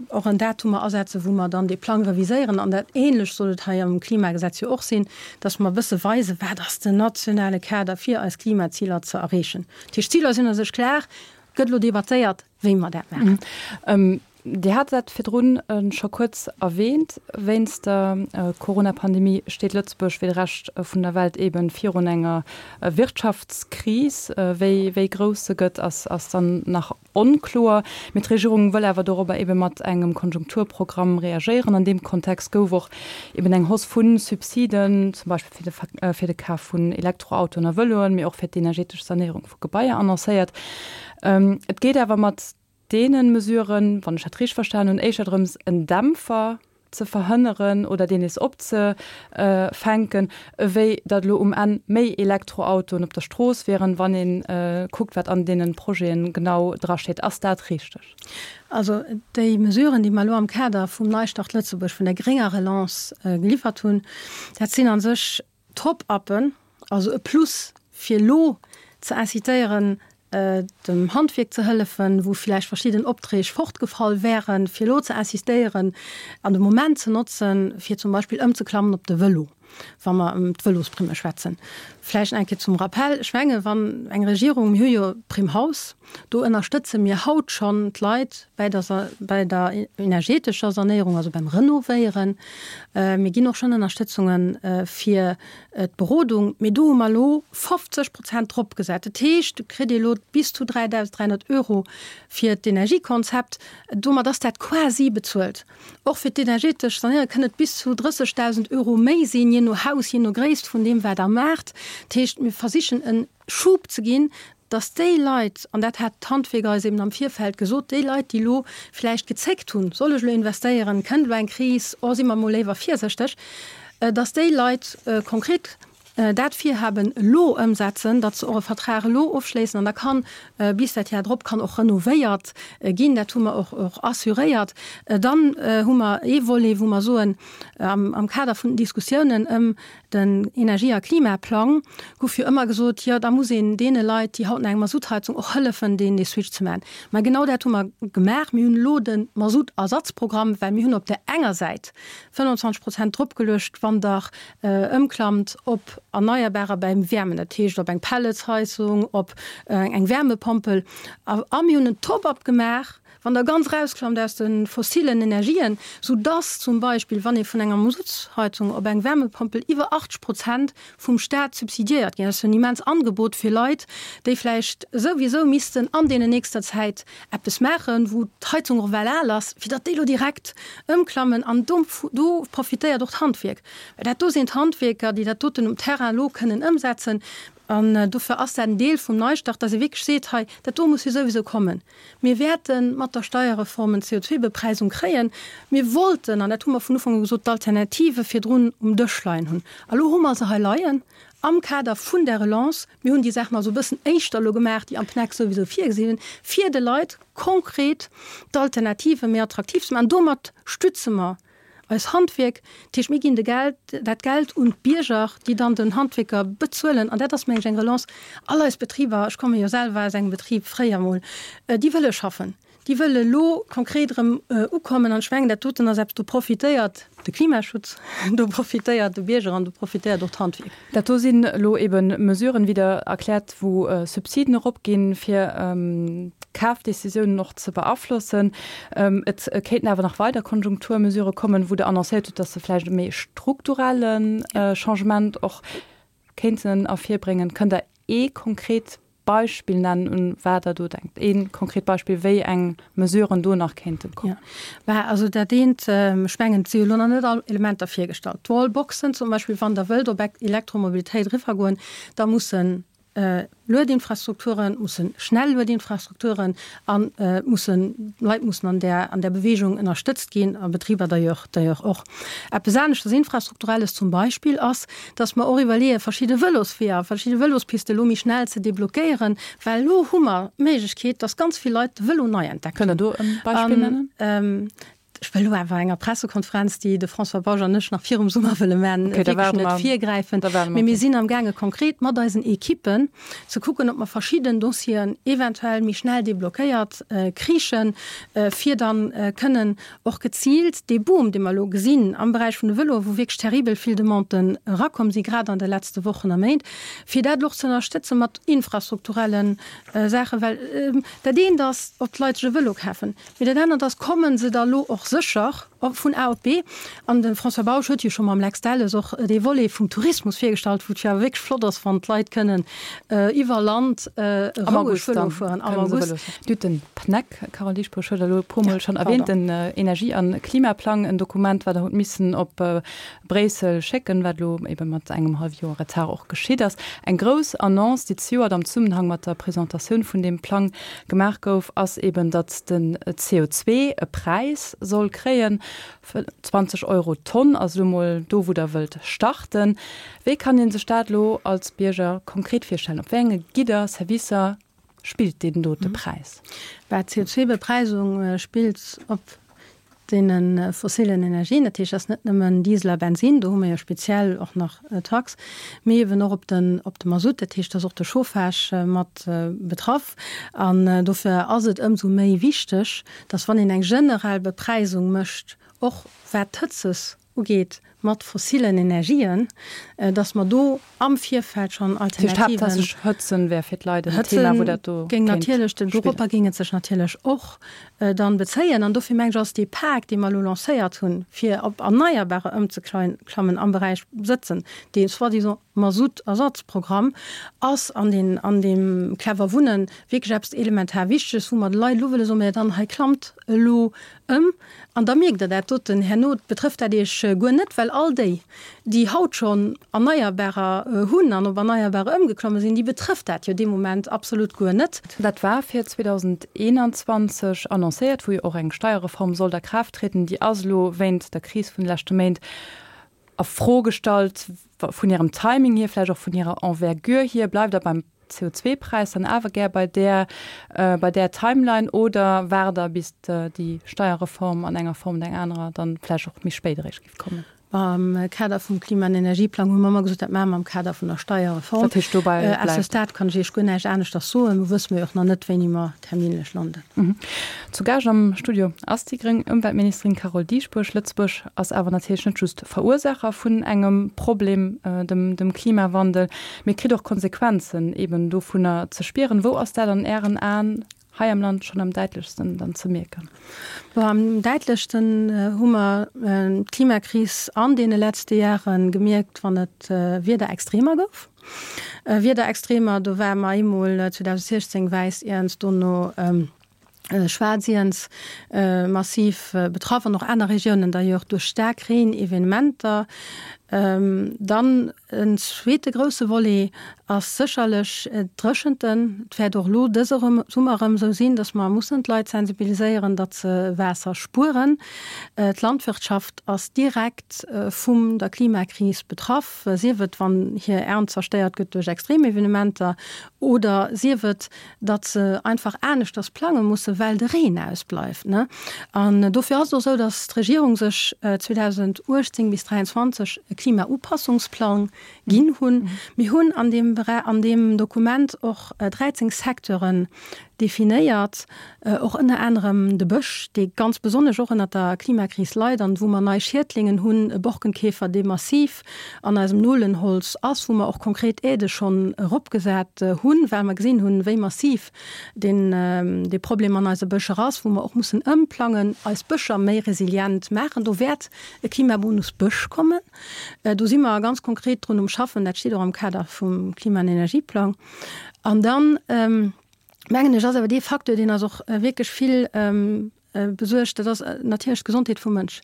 och en Datumer asetzen, wou mer dann dee Plang reviséieren. An dat Ähnlecht soll et hei am Klimagesetz jo och sinn, datt mer e bësse weisen, wat ass den nationale Kader, fir eis Klimaziler ze erreechen. Dat heescht, d'Ziler sinn a sech klar, et gëtt elo debattéiert, wéi mer dat maachen. Dir hat dat virdrun scho kuerz erwähnt, Wéinst der Corona-Pandemie steet Lëtzebuerg wéi de Rescht vun der Welt eeben virun enger Wirtschaftskris. Wéi wéi grouss se gëtt, ass ass dann nach onkloer. Mee d'Regierung wëll awer dorobber eebe mat engem Konjunkturprogramm reagéieren. An deem Kontext gouf och eeben eng Hausse vu Subsiden, zum Beispill fir de fir de Kaf vun Elektroautoen a Vëloen, mee och fir d'energetesch Sanéierung vu Gebaier annoncéiert. Et geet awer mat deene Mesuren, wann ech dat richteg verstanen hunn, éischter drëms, en Dämpfer ze verhënneren oder deen nees opzefänken, ewéi datt elo um Enn méi Elektroautoen op der Strooss wieren, wann ee kuckt, wat an deene Projeten genau drasteet. Ass dat richteg? Also déi Mesuren, déi mer elo am Kader vum Neistart Lëtzebuerg, vun der grénger Relance geliwwert hunn, dat sinn a sech Top-uppen, also e Plus fir elo ze incitéieren, dem Handwierk ze hëllefen, wou vläicht verschidden Opträg fortgefall wären, fir elo ze insistéieren an de Moment ze notzen, fir zum Beispill ëmzeklammen op de Vëlo, wa mer ëm d'Vëlosprimme schwätzen. Vläicht eng Kéier zum Rappell, Ech menge wann eng Regierung, mir hu jo d'Prime Haus, do ënnerstëtze mir haut schonn d'Leit bäi der, bäi der energetescher Sanéierung, also beim Renovéieren. Mir ginn och schonn Ënnerstëtzunge fir d'Berodung, mee do hu mer elo 50 Prozent drop gesat. Dat heescht, do kritt ee elo bis zu 3.300 Euro fir d'Energiekonzept. Domat ass dat quasi bezuelt. Och fir d'energetesch Sanéierung kënn et bis zu 30.000 Euro méi sinn, jee no Haus, jee no Gréisst vun deem, wat Der maacht. Dat heescht, mir versichen e Schub ze ginn, dass déi Leit, an dat hat d'Handwierk eis eben am Virfeld gesot, déi Leit, déi elo vläicht gezéckt hunn, soll ech elo investéieren, kënnt elo eng Kris, oh si mer emol léiwer virséchteg, dass déi Leit konkret dat Virhaben elo ëmsetzen, datt se och e Vertrag elo ofschléissen an da kann bis dat Jar drop kann och renovéiert ginn. Dat hu mer och och assuréiert. Dann hu mer ee Volet, wou mer soen, am Kader vun den Diskussiounen ëm Den Energie a Klimaplang guff jo ëmmer gesot, jo da muss een deene Leit, déi haut nach eng Masuttheizung, och hëllefen, deen dee Switch ze maachen. Mä genau dat hu mer gemaach. Mir hunn elo de Masuttersatzprogramm, well mir hunn op där enger Säit 25 Prozent dropgeluecht, wann Der ëmklammt op Erneierbarer beim Wäermen, dat heescht op eng Pelletsheizung, op eng Wärmepompel. A mir hunn en Top-up gemaach, Wann Der ganz erausklammt aus de fossilen Energien, sou dass zum Beispill, wann ee vun enger Masutsheizung op eng Wärmepompel iwwer 80 Prozent vum Staat subsidiéiert ginn, dat ass jo en immens Angebot fir Leit, déi vläicht souwisou missten an deene nächster Zäit eppes maachen, wou d'Heizung och well al ass, fir datt déi elo direkt ëmklammen. An do do profitéiert och d'Handwierk, well dat do sinn d'Handwierker, déi dat doten um Terrain elo kënnen ëmsetzen. An dofir ass dat en Deel vum Neistart, dass ee wierklech seet, hei, dat do muss jo souwisou kommen. Mir wäerte mat der Steierreform en CO2-Bepreisung kréien. Mir wollten, an dat hu mer vun Ufank u gesot, d'Alternative virdrun um Dësch leien hunn. A lo hu mer se hei leien am Kader vun der Relance. Mir hunn déi Saachen also e bëssen éischter elo gemaach, déi am PNEC souwisou virgesi sinn, fir de Leit konkret d'Alternative méi attraktiv ze maachen. Domat stütze mer Eis Handwierk, dat heescht mir ginn de Geld, dat Geld un d'Bierger, déi dann den Handwierker bezuelen. An dat ass, mengen ech, eng Relance. All eis Betriber, ech komme jo selwer aus engem Betrib fréier emol, déi wëlle schaffen, déi wëlle elo konkret erëm ukommen. An ech mengen, dat doten ass eppes, do profitéiert de Klimaschutz, do profitéiert de Bierger an do profitéiert och d'Handwierk. Dat do sinn elo ebe Mesuren, wéi Der erkläert, wou Subsiden eropginn, fir d'Kafdecisiounen och ze beaflossen. Et kéinten awer nach weider Konjunkturmesurë kommen, wou Der annoncéiert hutt, dass se vläicht e méi strukturelle Changement och kéinten ervirbréngen. Kënnt Der ee konkret Beispill nennen, un wat Der do denkt? Ee konkret Beispill, wéi eng Mesuren do nach kéinten kommen? Jo, bah, also dat eent, ech mengen, et si jo elo nach net all Elementer virgestallt. D'Wallboxen zum Beispill, wann Der wëllt op Elektromobilitéit eriwwergoen, da mussen Luedinfrastrukturen, musse schnell Luedinfrastrukturen a mussen, Leit mussen an där, an där Bewegung ënnerstëtzt ginn a Betriber d'ailleurs, d'ailleurs och. Eppes aneschters Infrastrukturelles zum Beispill ass, dass mer och iwwerleeën, verschidde Vëlosweeër, verschidde Vëlospiste elo méi schnell ze deblockéieren, well elo hu mer d'Méiglechkeet, dass ganz vill Leit de Vëlo nei entdeckt hunn. Kënnt Der do e Beispill nennen? Ech wëll elo awer enger Pressekonferenz, déi de François Bausch an ech nach virum Summer wëlle man, wierklech net virgräifen. Mee mir sinn amgaange konkret mat eisen Ekippen ze kucken, ob mer verschidden Dossieren eventuell méi schnell deblockéiert kriichen, fir dann kënnen och geziilt dee Boom, dee mer elo gesinn am Beräich vun de Vëloen, wou wierklech terribel vill Demanden erakomm sinn, grad an de letzte Wochen a Méint, fir dat elo och ze ënnerstëtzen mat infrastrukturelle Saachen. Well dat eent ass, ob d'Leit sech e Vëlo kafen, Mee dat anert ass, Komme se da lo och sécher vun A op B? An de François Bausch huet jo scho mam Lex Delles och dee Volet vum Tourismus virgestallt, wou et jo awer wierklech flott ass, wann d'Leit kënnen iwwer Land roueg Vëlo fueren am August. Dir hutt den PNEC, Carole Dieschbourg huet Der elo e puermol schonn erwähnt, den Energie a Klimaplang, en Dokument, wat Der hutt missen op Bréissel schécken, wat elo ebe mat engem hallwe Joer Retard och geschitt ass. Eng grouss Annonce, déi zejoert am Zesummenhang mat der Presentatioun vun deem Plang gemaach gouf, ass eben, datt den CO2 e Präis soll kréien. 20 Euro d'Tonn ass elo mol do, wou Der wëllt starten. Wéi kann ee sech dat elo als Bierger konkret virstellen? Op wéi enge Gidder, Servicer spillt deen dote Präis? Bah, d'CO2-Bepreisung spillt op deene fossilen Energien, dat heescht, dat ass net nëmmen Diesel a Bensin, do hu mer jo speziell och nach Tax, mee eben och op den, op de Masutt, dat heescht, da ass och de Chauffage mat betraff. An dofir ass et ëmsou méi wichteg, dass wann een eng generell Bepreisung mécht, och wat d'Hëtzes ugeet mat fossilen Energien, dass mer do am Virfeld schonn Alternativen. Haaptsächlech Hëtzen wär fir d'Leit en Thema, wou dat do kéint spillen. Doropper géing et sech natierlech och dann bezéien. An dofir mengen ech, ass dee Pak, dee mer elo lancéiert hunn, fir op Erneierbarer ëmzeklammen am Beräich Sëtzen, dee soi-disant Masutt-Ersatzprogramm, ass an deen, an deem Clever Wunnen wierklech eppes elementar Wichteges, wou mer de Leit elo wëlle soen, Mä dann hei klammt elo ëm. An da mierkt Der dat doten herno, betrëfft dat Iech guer net, well all déi, déi haut schonn Erneierbarer hunn an op Erneierbarer ëmgeklomme sinn, déi betrëfft dat jo dee Moment absolut guer net. Dat war fir 2021 annoncéiert, wou jo och eng Steierreform sollt a Kraaft trieden. Déi ass elo wéint der Kris vun de leschte Méint a Fro gestallt, vun hirem Timing hier, vläicht och vun hirer Envergure hier. Bleift Der beim CO2-Präis dann awer gär bei där, bei där Timeline oder waart Der, bis déi Steierreform an enger Form oder enger anerer dann vläicht och méi spéit eréischt géif kommen? Am Kader vum Klima an Energieplang hu mer ëmmer gesot, dat maache mer am Kader vun der Steierreform. Dat heescht, dobäi bleift. À ce stade kann ech Iech guer näischt aneschters soen. Do wësse mer jo och nach net, wéini mer terminlech landen. Zu Gaascht am Studio ass déi gréng Ëmweltministerin Carole Dieschbourg. Lëtzebuerg ass awer natierlech net just Verursaacher vun engem Problem, dem Klimawandel, mee kritt och Konsequenzen eben dovunner ze spieren. Wou ass dat an Ären Aen hei am Land schonn am däitlechsten dann ze mierken? Bon, am däitlechsten hu mer d'Klimakris an deene letzte Jahre gemierkt, wann et Wiederextremer gouf. Wiederextremer, do ware mer eemol 2016 wäiss Iernz, dono schwaarz Iernz massiv betraff an och aner Regiounen d'ailleurs duerch staark Reen-Evenementer. Dann en zweete grousse Volet ass sécherlech d'Dréchenten. Et wäert och elo dëse Summer erëm esou sinn, datt mer mussen d'Leit sensibiliséieren, datt se Waasser spueren. D'Landwirtschaft ass direkt vum der Klimakris betraff. sief et wann hir Ernt zerstéiert gëtt duerch Extremevenementer oder sief et, datt se einfach aneschters plange mussen, well de Reen ausbleift. An dofir ass et och esou, datt d'Regierung sech 2018 bis 2023 e Klimaupassungsplang ginn hunn. Mir hunn an deem an deem Dokument och 13 Secteuren definéiert, och ënner anerem de Bësch, dee ganz besonnesch och ënner der Klimakris leit an wou mer nei Schiedlingen hunn, e Borkenkäfer, dee massiv an eisem Nolenholz ass, wou mer och konkret Aidë schonn eropgesat hunn, well mer gesinn hunn, wéi massiv deen, dee Problem an eise Bëscher ass, wou mer och mussen ëmplangen, eis Bëscher méi resilient maachen. Do wäert e Klimabonus Bësch kommen. Do si mer ganz konkret drun um Schaffen. Dat steet och am Kader vum Klima an Energieplang. An dann, mengen ech, ass awer dee Facteur, deen eis och wierklech vill besuergt, dat ass natierlech d'Gesondheet vum Mënsch.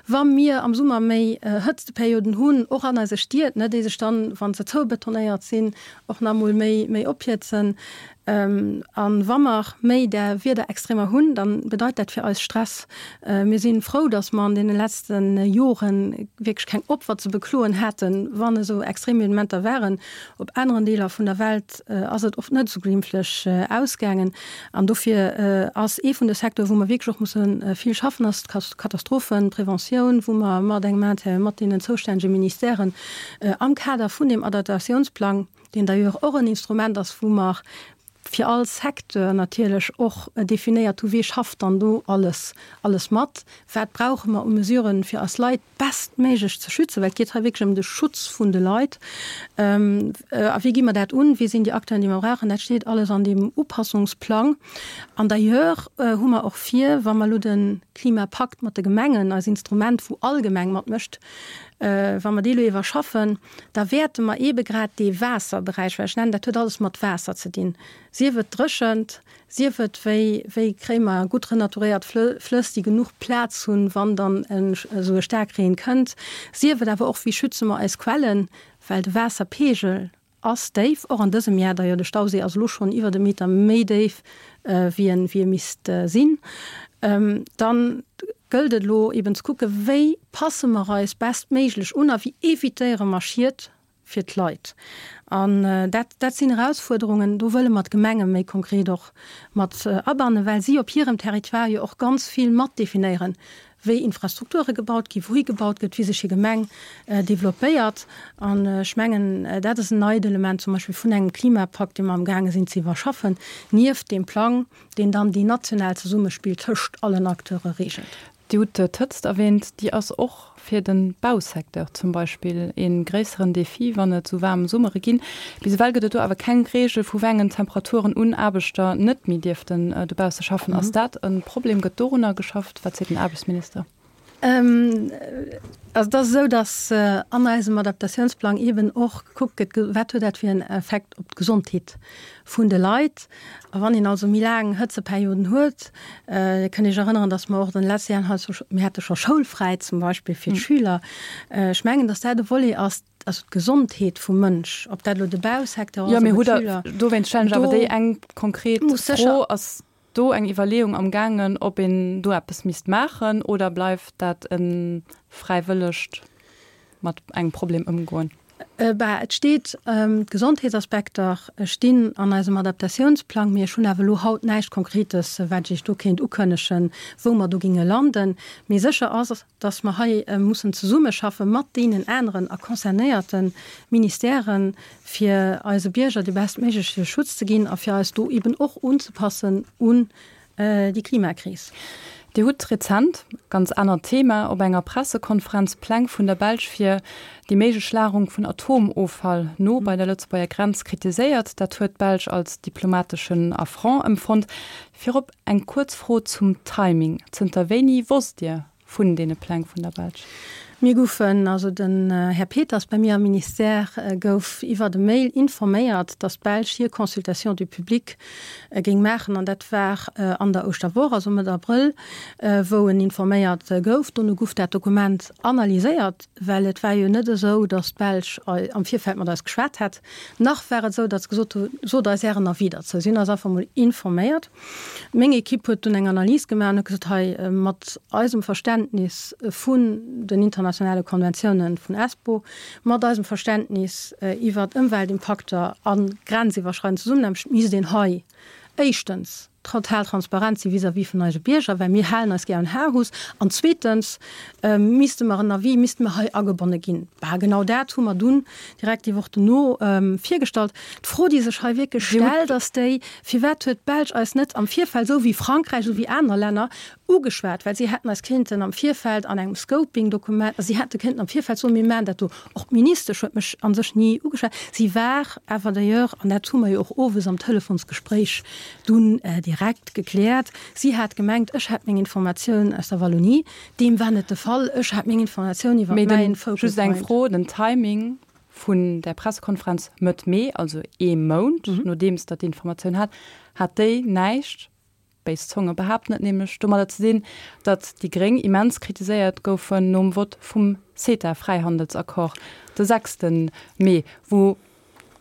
Wa mir am Summer méi Hëtzteperioden hunn, och an eise Stied, ne, déi sech dann, wa se zoubetonéiert sinn, och nach emol méi, méi ophiezen. A wa mer méi där Wiederextremer hunn, da bedeit dat fir eis Stress. Mir si frou, datt mer an deene letzte Jore wierklech keng Opfer ze bekloen haten, wann esou extrem Evenementer waren. Op aneren Deeler vun der Welt ass et oft net esou glimpflech ausgaangen. An dofir ass ee vun de Secteuren, wou mer wierklech och musse vill schaffen, ass d'Katastrophenpreventioun, wou mer mat engem Intérêt, mat deenen zoustännege Ministèren am Kader vun deem Adaptatiounsplang, deen d'ailleurs och en Instrument ass, wou mer fir all Secteur natierlech och definéiert hu, wee schafft dann do alles, alles mat, wat brauche mer u Mesuren, fir eis Leit bestméiglech ze schützen, well et geet hei wierklech ëm de Schutz vun de Leit. A wéi gi mer dat un, wie sinn déi Acteuren, déi mer brauchen, dat steet alles an deem Upassungsplang. An d'ailleurs hu mer och vir, wa mer elo de Klimapakt mat de Gemengen, eist Instrument, wou all Gemeng matmécht, wa mer dee elo iwwerschaffen, da wäerte mer eebe grad dee Waasserberäich, well ech nennen, dat huet alles mat Waasser ze dinn, sief et dréchent, sief et wéi, wéi kréie mer gutt renaturéiert Flëss, déi genuch Plaz hunn, wann dann esou e Staarkreen kënnt, sief et awer och, wéi schütze mer eis Quellen, well de Waasserpeegel ass déif, och an dësem Jar, d'ailleurs de Stauséi ass elo schonn iwwert e Meter méi déif, wéi en, wéi e misst sinn, dann gëllt et elo eben ze kucken, wéi passe mer eis bestméiglech un a wéi evitéiere mer Schied fir d'Leit. An dat, dat sinn Erausfuerderungen, do wëlle mer d'Gemenge méi konkret och mat abannen, well si op hirem Territoire jo och ganz vill mat definéieren, wéi Infrastrukture gebaut ginn, wouhi gebaut gëtt, wéi sech hir Gemeng developpéiert. An ech mengen, dat ass en neit Element zum Beispill vun engem Klimapakt, dee mer amgaange sinn ze iwwerschaffen, nieft deem Plang, deen dann déi national Zesummespill tëscht allen Acteure reegelt. Dir hutt d'Hëtzt erwähnt, déi ass och fir de Bausecteur zum Beispill ee gréisseren Defi, wann et esou waarm Summere ginn. Bis ewell gëtt et do awer keng Reegel, vu wéi engen Temperaturen un Aarbechter net méi dierften dobausse schaffen. Ass dat e Problem? Gëtt dorunner geschafft? Wat seet den Aarbechtsminister? Also et ass esou, datt an eisem Adaptatiounsplang eeben och gekuckt gëtt, wat huet dat fir en Effekt op d'Gesondheet vun de Leit. A wann een also méi laang Hëtzeperioden huet, Dir kënnt Iech erënneren, datt mer och an de letzte Jahren hei, mir hate scho schoulfräi zum Beispill fir d'Schüler. Ech mengen, datt dat e Volet ass, also d'Gesondheet vum Mënsch, ob dat elo de Bausecteur ass oder d'Schüler. Dowéinst stellen ech awer déi eng konkret Fro, Ass do eng Iwwerleeung am gaangen, ob een do eppes misst maachen oder bleift dat e fräiwëllegt mat engem Problem ëmgoen? Bah, et steet, d'Gesondheetsaspekter stinn an eisem Adaptatiounsplang, mee ech hunn awer elo haut näischt Konkretes, wat ech Iech do kéint ukënnegen, wou mer do ginge landen. Mee sécher ass, dass mer hei mussen zesummeschaffe mat deenen aneren a concernéierte Ministèren, fir eise Bierger de bestméigleche Schutz ze ginn a fir eis do eben och unzepassen un déi Klimakris. Dir hutt rezent, ganz anert Thema, op enger Pressekonferenz Pläng vun der Belsch fir déi méiglech Lagerung vun Atomoffall no bei der Lëtzebuerger Grenz kritiséiert. Dat huet d'Belsch als diplomateschen Affront empfonnt. Virop eng kuerz Fro zum Timing, Zënter wéini wosst Dir vun deene Pläng vun der Belsch? Mir goufen, also den Här Peters bei mir am Ministère gouf iwwert e Mail informéiert, datt d'Belsch hir Consultation du public géing maachen an dat war an der Ouschterwoch, also Mëtt Abrëll, wou en informéiert gouf. Dono guff dat Dokument analyséiert, well et war jo net esou, datt d'Belsch am Virfeld mat eis geschwat hätt, nach war et esou, datt se gesot hu sot eis Ären Avis derzou. Si hunn eis einfach mol informéiert. Meng Ekipp huet dunn eng Analys gemaach an huet gesot, hei, mat eisem Verständnis vun den internationale Konventiounen vun Espoo, mat eisem Verständnis iwwert Ëmweltimpakter a grenziwwerschreidend Zesummenaarbecht misst een hei éischtens total transparent si vis-à-vis vun eise Bierger, well mir halen eis gär un Aarhus, an zweetens misste mer en Avis, misste mer hei agebonne ginn. Bah, genau dat hu mer dunn direkt déi Woch dono virgestallt. D'Fro, déi sech hei wierklech stellt, ass déi, Firwat huet d'Belsch eis net am Virfeld, esou wéi Frankräich, esou wéi aner Länner, ugeschwat? Well si hätten eis kéinten am Virfeld an engem Scoping-Dokument, also si hätte kéinten am Virfeld soen, mir maachen dat do. Och d'Ministesch huet mech a sech ni ugeschwat. Si war awer d'ailleurs, an dat hu mer jo och owes am Telefonsgespréich dunn direkt gekläert, si hat gemengt, ech hätt meng Informatioun aus der Wallonie. Deem war net de Fall. Ech hat meng Informatioun iwwer mäin Focal Point. Just eng Fro, den Timing vun där Pressekonferenz Mëtt Mee, also ee Mount nodeems Der d'Informatioun hat, hat déi näischt, béis Zonge behaapten et nämlech, domadder ze dinn, datt déi Gréng immens kritiséiert goufen nom Vott vum CETA-Fräihandelsaccord de sechste Mee, wou.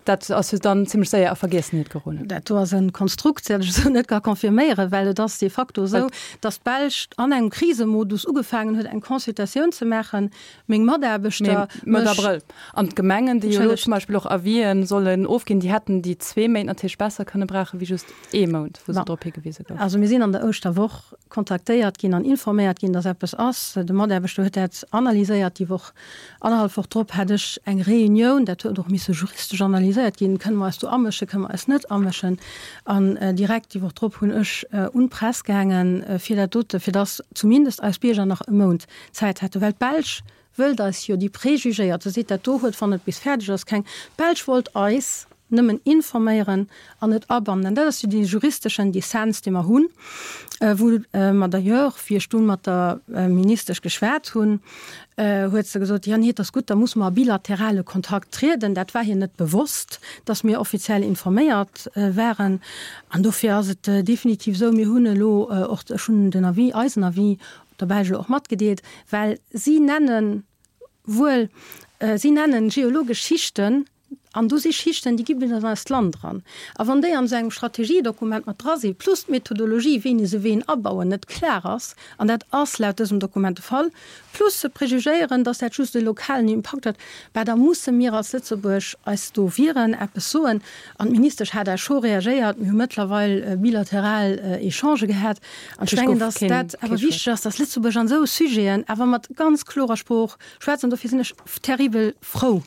Dat ass jo dann zimlech séier a Vergiessenheet geroden. Dat do ass e Konstrukt, dat ech esou net ka confirméieren, well et ass de facto esou, datt d'Belsch an engem Krisemodus ugefaangen huet, eng Consultatioun ze maachen. Meng Mataarbechter. Mee Mëtt Abrëll. An d'Gemengen, déi jo elo zum Beispill och Avisen sollen ofginn, déi hätten déi zwee Méint natierlech besser kënne brauchen, wéi just ee Mount, wou se drop higewise goufen. Also mir sinn an der Ouschterwoch kontaktéiert ginn an informéiert ginn, datt eppes ass. De Mataarbechter huet dat analyséiert déi Woch. Annerhallef Woch drop hat ech eng Reunioun, dat huet och misse juristesch analyséiert ginn, kënne mer eis do amëschen, kënne mer eis net amëschen. An direkt déi Woch drop hunn ech un d'Press gaangen, fir dat dote, fir datt zumindest eis Bierger nach e Mount Zäit hätten, well d'Belsch wëllt eis jo, déi prejugéiert, se seet, dat do huet, wann et bis fäerdeg ass, keng, d'Belsch wollt eis nëmmen informéieren an net abannen. An dat ass jo dee juristeschen Dissens, dee mer hunn, wou mer d'ailleurs, wéi ech dunn mat der Ministesch geschwat hunn, huet se gesot, jo, nee, et ass gutt, da musse mer a bilaterale Kontakt trieden. Dat war hir net bewosst, dass mir offiziell informéiert waren. An dofir ass et definitiv esou, mir hunn elo och, ech hunn den Avis, eisen Avis der Belsch elo och matgedeelt, well si nennen wuel, si nennen geologesch Schichten, An do si Schichten, déi gi bis an eist Land eran. A wann déi an esou engem Strategiedokument mat dra sinn, plus d'Methodologie, wéini se ween abauen, net klar ass, an dat ass laut dësem Dokument de Fall, plus se prejugéieren, dass dat just e lokalen Impakt huet, bah da musse mir als Lëtzebuerg eis do wieren, eppes soen. An d'Ministesch hat da scho reagéiert. Mir hu mëttlerweil bilateral Echangë gehat. An ech mengen, dass dat awer wichteg ass, dass Lëtzebuerg an esou Sujeten awer mat ganz klorer Sprooch schwätzt. An dofir sinn ech terribel frou,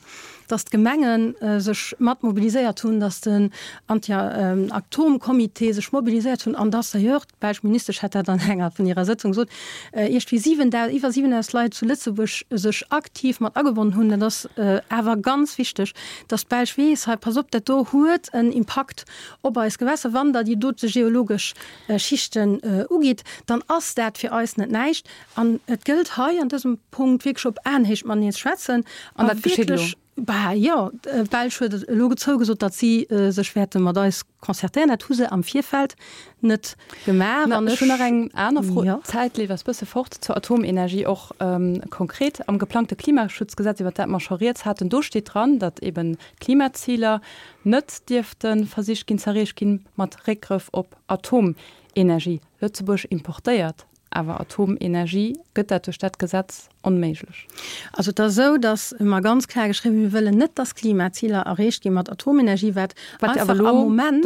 dass d'Gemenge sech mat mobiliséiert hunn, dass den Anti-Atom-Comité sech mobiliséiert hunn an dass d'ailleurs, d'belsch Ministesch hat dat an enger vun hirer Sëtzung gesot, iergendwéi 7.000, iwwer 7.000 Leit zu Lëtzebuerg sech aktiv mat agebonnen hunn. Dat ass awer ganz wichteg, dass d'Belsch weess, hei, pass op, dat do huet en Impakt op eis Gewässer. Wann Der déi dote geologesch Schichten ugitt, dann ass dat fir eis net näischt. An et gëllt hei an dësem Punkt wierklech op Aenhéicht mateneen ze schwätzen. An dat geschitt elo? Bah jo, d'Belsch huet elo zougesot, datt si sech wäerte mat eis concertéieren. Dat hu se am Virfeld net gemaach. An ech hunn nach eng aner Fro, d'Zäit leeft eis bësse fort, zur Atomenergie och konkret. Am geplangte Klimaschutzgesetz, iwwert dat mer scho rieds haten, do steet dran, datt eben d'Klimaziler net dierfte versicht ginn z'erreecht ginn mat Réckgrëff op Atomenergie. Lëtzebuerg importéiert Awer Atomenergie, gëtt dat duerch dat Gesetz onméiglech? Also et ass esou, datt mer ganz kloer geschriwwen hunn, mir wëllen net, datt Klimaziler erreecht gi mat Atomenergie, wat einfach am Moment,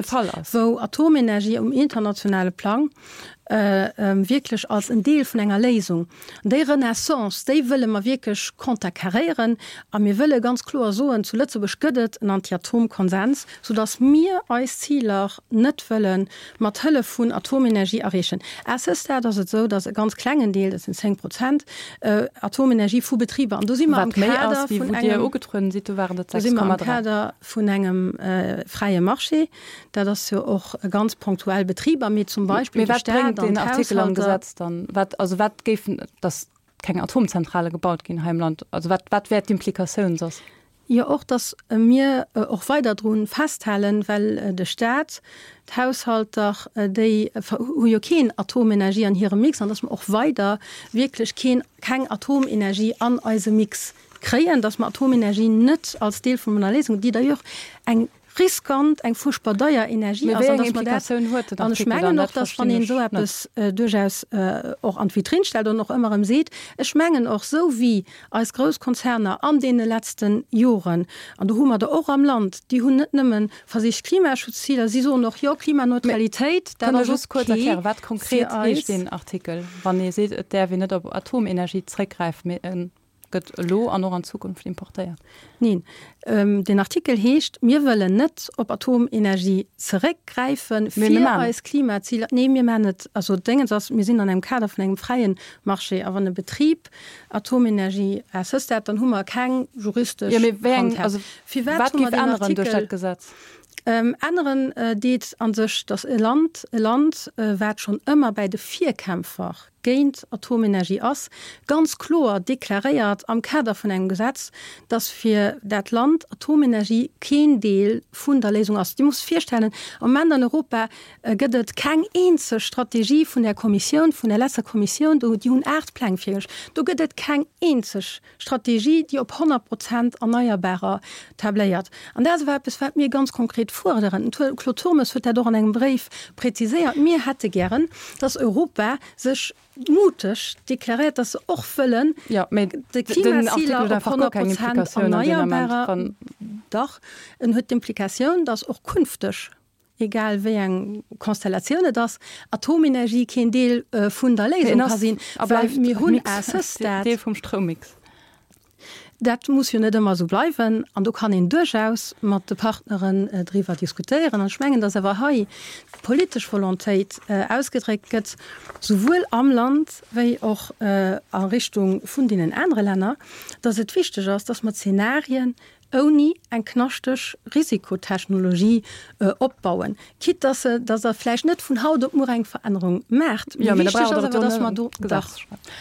wou Atomenergie um internationale Plang wierklech als en Deel vun enger Léisung, déi Renaissance, déi wëlle mer wierklech konterkaréieren. A mir wëlle ganz kloer soen, zu Lëtzebuerg gëtt et en Anti-Atom-Konsens, soudatt mir eis Ziler net wëlle mat Hëllef vun Atomenergie erreechen. À ce stade ass et esou, datt e ganz klengen Deel, dat sinn 10 Prozent, Atomenergie vu Betriber, an do si mer am Kader vun engem, do si mer am Kader vun engem fräie Marché, dat ass jo och ganz ponktuell Betriber, mee zum Beispill de Staat an d'Haushalter. Also wat géifen, datt keng Atomzentrale gebaut ginn hei am Land, also wat, wat wär d'Implikatioun soss? Jo, och datt mir och weider dru festhalen, well de Staat, d'Haushalter, déi hu jo keen Atomenergie an hirem Mix, an datt mer och weider wierklech keen, keng Atomenergie an eise Mix kréien, datt mer Atomenergie net als Deel vun enger Léisung, déi d'ailleurs eng riskant, eng fuerchtbar deier Energie ass, an datt mer dat, an ech mengen och, datt wann een esou eppes duerchaus och an d'Vitrinn stellt an och ëmmer erëm seet, ech mengen och, esou wéi eis grouss Konzerner an deene letzte Joren, an do hu mer der och am Land, déi hunn net nëmme versicht Klimaschutzziler, si soen och, jo, Klimaneutralitéit, dat ass ok fir eis. Wat konkret heescht deen Artikel, wann ee seet, et däerf een net op Atomenergie zréckgräifen, mee e gëtt elo an och an Zukunft importéiert? Neen, deen Artikel heescht, mir wëllen net op Atomenergie zeréckgräifen, fir eis Klimaziler. Nee, mir maachen et, also Déngens ass, mir sinn an engem Kader vun engem fräie Marché, a wann e Betrib Atomenergie à ce stade, dann hu mer keng juristesch Handhab. Firwat hu mer deen Artikel? Änneren deet a sech, datt e Land, e Land, wat schonn ëmmer bäi de Virkämpfer géint Atomenergie ass, ganz kloer deklaréiert am Kader vun engem Gesetz, datt fir dat Land Atomenergie keen Deel vun der Léisung ass. Dir musst virstellen, am Moment an Europa gëtt et keng eenzeg Strategie vun der Kommissioun, vun der letzter Kommissioun, do, déi hunn 8 Pläng virgeluecht, do gëtt et keng eenzeg Strategie, déi op 100 Prozent Erneierbarer tabléiert. An dat ass awer eppes, wat mir ganz konkret fuerderen. Den Claude Turmes huet dat och an engem Bréif präziséiert. Mir hätte gären, dass Europa sech muteg deklaréiert, dass se och wëllen de Klimaziler op 100 Prozent Erneierbarer. Dach, en huet d'Implikatioun, dass och künfteg egal wéi eng Konstellatioun et ass, Atomenergie keen Deel vun der Léisung ka sinn, well mir hunn à ce stade. Deel vum Stroummix. Dat muss jo net ëmmer esou bleiwen an do kann een duerchaus mat de Partneren driwwer diskutéieren. An ech mengen, datt awer hei d'politesch Volontéit ausgedréckt gëtt, souwuel am Land wéi och a Richtung vun deenen anere Länner, datt et wichteg ass, datt mer Zenarien ouni eng knaschteg Risikotechnologie opbauen, quitte dass se, dass Der vläicht net vun haut op muer eng Verännerung maacht. Mee wichteg ass awer, dass mer do, dach,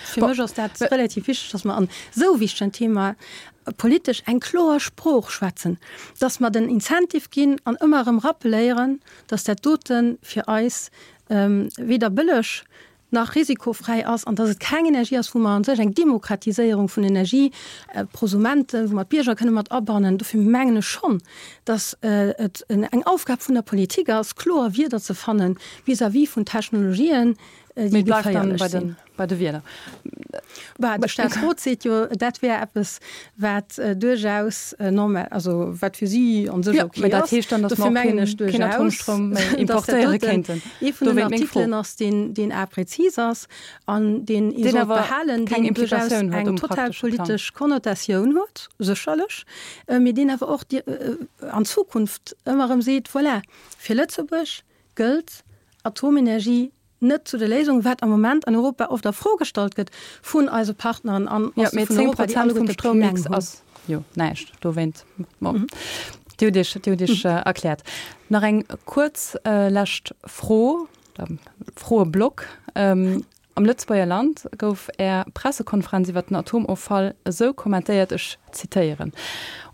fir mech ass dat relativ wichteg, dass mer an esou wichtegen Thema politesch eng kloer Sprooch schwätzen, dass mer den Incentive ginn an ëmmer erëm rappeléieren, dass dat dote fir eis weder bëlleg nach risikofräi ass an dass et keng Energie ass, wou mer an sech eng Demokratiséierung vun Energie, Prosumenten, wou mer d'Bierger kënne mat abannen. Dofir mengen ech schonn, dass et eng Aufgab vun der Politik ass, kloer Wierder ze fanne vis-à-vis vun Technologien, déi geféierlech sinn. Bei de Wierder. Bah, de Staatsrot seet jo, dat wär eppes, wat duerchaus normal, also wat fir si an sech ok ass. Dat heescht dann, datt mer och keen Atomstroum méi importéiere kéinten. Ee vun den Artikelen ass, deen, deen a prezis ass an deen ee sollt behalen, deen duerchaus eng total politesch Konnotatioun huet, sécherlech, mee deen awer och an Zukunft ëmmer erëm seet, voilà, fir Lëtzebuerg gëllt Atomenergie net zu der Léisung, wat am Moment an Europa oft a Fro gestallt gëtt vun eise Partneren an ja, vun Europa, déi alleguerte Pläng hunn. Ass jo näischt dowéint. Bon. Dir hutt Iech, Dir hutt Iech erkläert. Nach eng kuerz lescht Fro, Froeblock. Am Lëtzebuerger Land gouf Är Pressekonferenz iwwer den Atomoffall esou kommentéiert, ech zitéieren,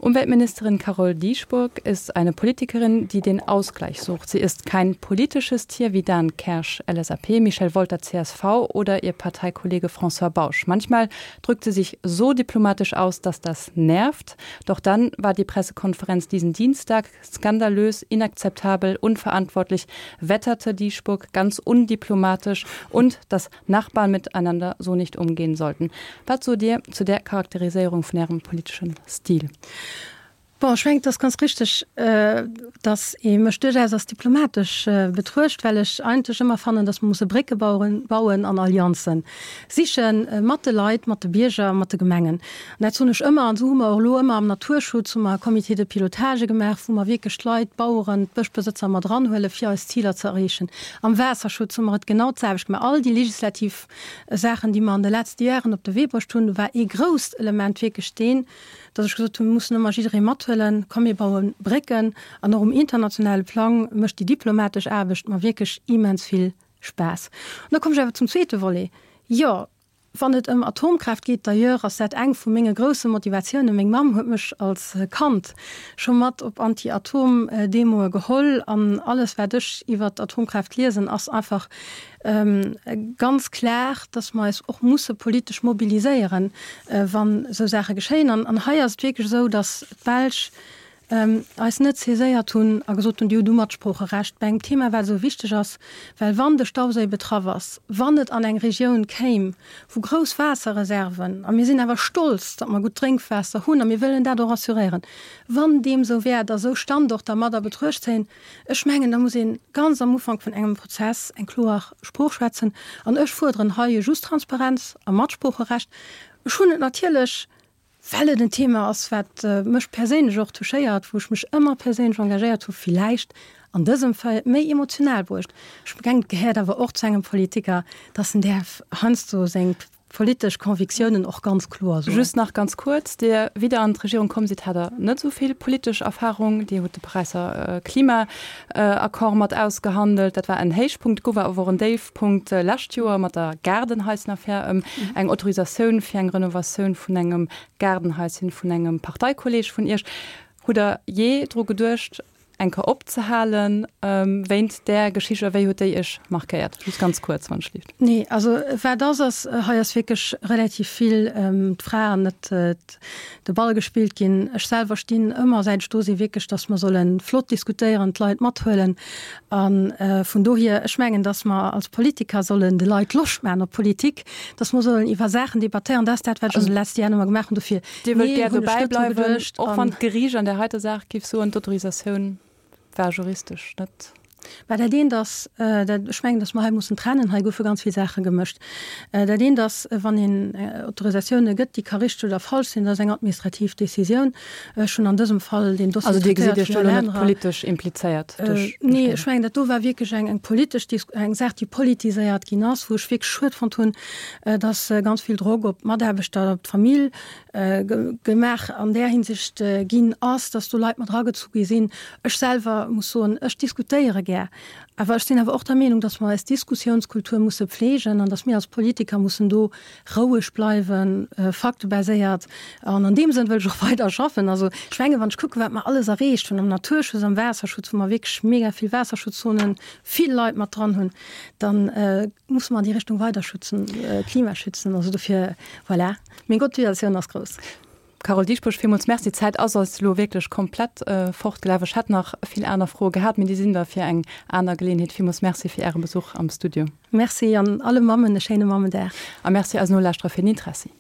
Umweltministerin Carole Dieschbourg ist eine Politikerin, die den Ausgleich sucht. Sie ist kein politisches Tier wie Dan Kersch, LSAP, Michel Wolter, CSV, oder ihr Parteikollege François Bausch. Manchmal drückt sie sich so diplomatisch aus, dass das nervt. Doch dann war die Pressekonferenz diesen Dienstag skandalös, inakzeptabel, unverantwortlich, wetterte Dieschbourg ganz undiplomatisch und dass Nachbarn miteinander so nicht umgehen sollten. Wat sot Dir zu där Charakteriséierung vun Ärem politeschen Stil? Bon, ech mengen, et ass ganz richteg, datt ee mech duerchaus als diplomatesch betruecht, well ech eigentlech ëmmer fannen, datt mer musse Brécke bauen an Allianze siche mat de Leit, mat de Bierger, mat de Gemengen. An dat soen ech ëmmer. An esou hu mer och elo ëmmer am Naturschutz hu mer Comités de pilotage gemaach, wou mer wierklech d'Leit, d'Baueren, d'Bëschbesëtzer mat eranhuelen, fir eis Ziler ze erreechen. Am Waasserschutz hu mer et genau d'selwecht gemaach. All déi legislativ Saachen, déi mer an de letzte Jaren op de Wee bruecht hunn, war ee grousst Element wierklech deen, dass ech gesot hunn, mir mussen ëmmer jidderee mathuelen, komm mir baue Brécken. An och um internationale Plang mécht déi diplomatesch Aarbecht mer wierklech immens vill Spaass. An da kommen ech awer zum zweete Volet. Jo, wann et ëm Atomkraaft geet, d'ailleurs ass dat eng vu menge grousse Motivatiounen, meng Mamm huet mech als Kand scho mat op Anti-Atom-Demoe geholl an alles wat ech iwwert d'Atomkraaft liesen ass einfach ganz klar, dass mer eis och musse politesch mobiliséieren, wann esou Saache geschéien. An hei ass et wierklech esou, dass d'Belsch eis net saiséiert hunn a gesot hunn, Dir hutt u Matsproocherecht bei engem Thema, wat esou wichteg ass, well wann de Stauséi betraff ass, wann et an eng Regioun kéim, wou grouss Waasserreserven, a mir sinn awer stolz, datt mer gutt Drénkwaasser hunn a mir wëllen dat och assuréieren, wann deem esou wär, datt esou Standorter mat a Betruecht zéien, Ech mengen, da muss ee ganz am Ufank vun engem Prozess eng kloer Sprooch schwätzen. An ech fuerderen hei just Transparenz a Matsproocherecht. Ech hunn et natierlech, well et en Thema ass, wat mech perséinlech och touchéiert, wou ech mech ëmmer perséinlech engagéiert hu villäicht an dësem Fall méi emotional bruecht. Ech mengen, et gehéiert awer och zu engem Politiker, dass en däerf heiansdo seng. politesch Convictiounen och ganz kloer soen. Just nach ganz kuerz, Dir, wéi Der an d'Regierung komm sidd, hat Der net esou vill politesch Erfahrung. Dir hutt de Paräisser Klimaaccord mat ausgehandelt. Dat war en Héichpunkt, gouf awer och en Déifpunkt lescht Joer mat der Gaardenhaisenaffär ëm eng Autorisatioun fir eng Renovatioun vun engem Gaardenhaischen vun engem Parteikolleeg vun Iech. Hutt Der jee dru geduecht, eng Kéier opzehalen wéint där Geschicht a wéi huet déi Iech markéiert? Just ganz kuerz, wann ech lift. Nee, also wat ass, ass, hei ass wierklech relativ vill d'Fra an net de Ball gespillt ginn. Ech selwer stinn ëmmer, säit ech do sinn, wierklech, datt mer solle flott diskutéieren, d'Leit mathuelen. A vun dohier, ech mengen, datt mer als Politiker sollen de Leit Loscht maachen op Politik, datt mer sollen iwwer Saachen debattéieren. Dat ass dat, wat ech an de leschte Jahren ëmmer gemaach hunn. Dofir Dir wëllt gär dobäi bleiwen, och wann d'Geriicht an där heiter Saach géif soen, d'Autorisatioun war juristesch net. Mä dat eent ass, dat, ech mengen, datt mer hei mussen trennen, hei goufe ganz vill Saache gemëscht. Dat eent ass, wann een Autorisatioune gëtt, déi ka richteg oder falsch sinn, dat ass eng administrativ Décisioun. Ech hunn an dësem Fall deen Dossier Also Dir gesitt Iech do elo net politesch implizéiert duerch deen? Nee, ech mengen, dat do war wierklech eng eng politesch Dis, eng Saach, déi politiséiert ginn ass, wou ech wierklech schued fonnt hunn, dass ganz vill Drock op d'Mataarbechter, op d'Famill gemaach an där Hinsicht ginn ass, dass do Leit mat eragezu gi sinn. Ech selwer muss soen, ech diskutéiere gär, awer ech sinn awer och der Meenung, dass mer eis Diskussiounskultur musse pflegen an dass mir als Politiker mussen do roueg bleiwen, faktebaséiert. An an deem Sënn wëll ech och weider schaffen. Also ech mengen, wann ech kucken, wat mer alles erreecht hunn am Naturschutz, am Waasserschutz, wou mer wierklech mega vill Waasserschutzzonen, vill Leit mat dran hunn, dann musse mer an déi Richtung weider schützen, Klima schützen. Also dofir, voilà, meng Motivatioun ass grouss. Carole Dieschbourg, villmools Merci. D'Zäit ass eis elo wierklech komplett fortgelaf. Ech hätt nach vill aner Froe gehat, mee déi sinn da fir eng aner Geleeënheet. Villmools Merci fir Äre Besuch am Studio. Merci an alle Mammen e schéine Mammendag. A Merci eisen Nolauschterer fir den Interessi.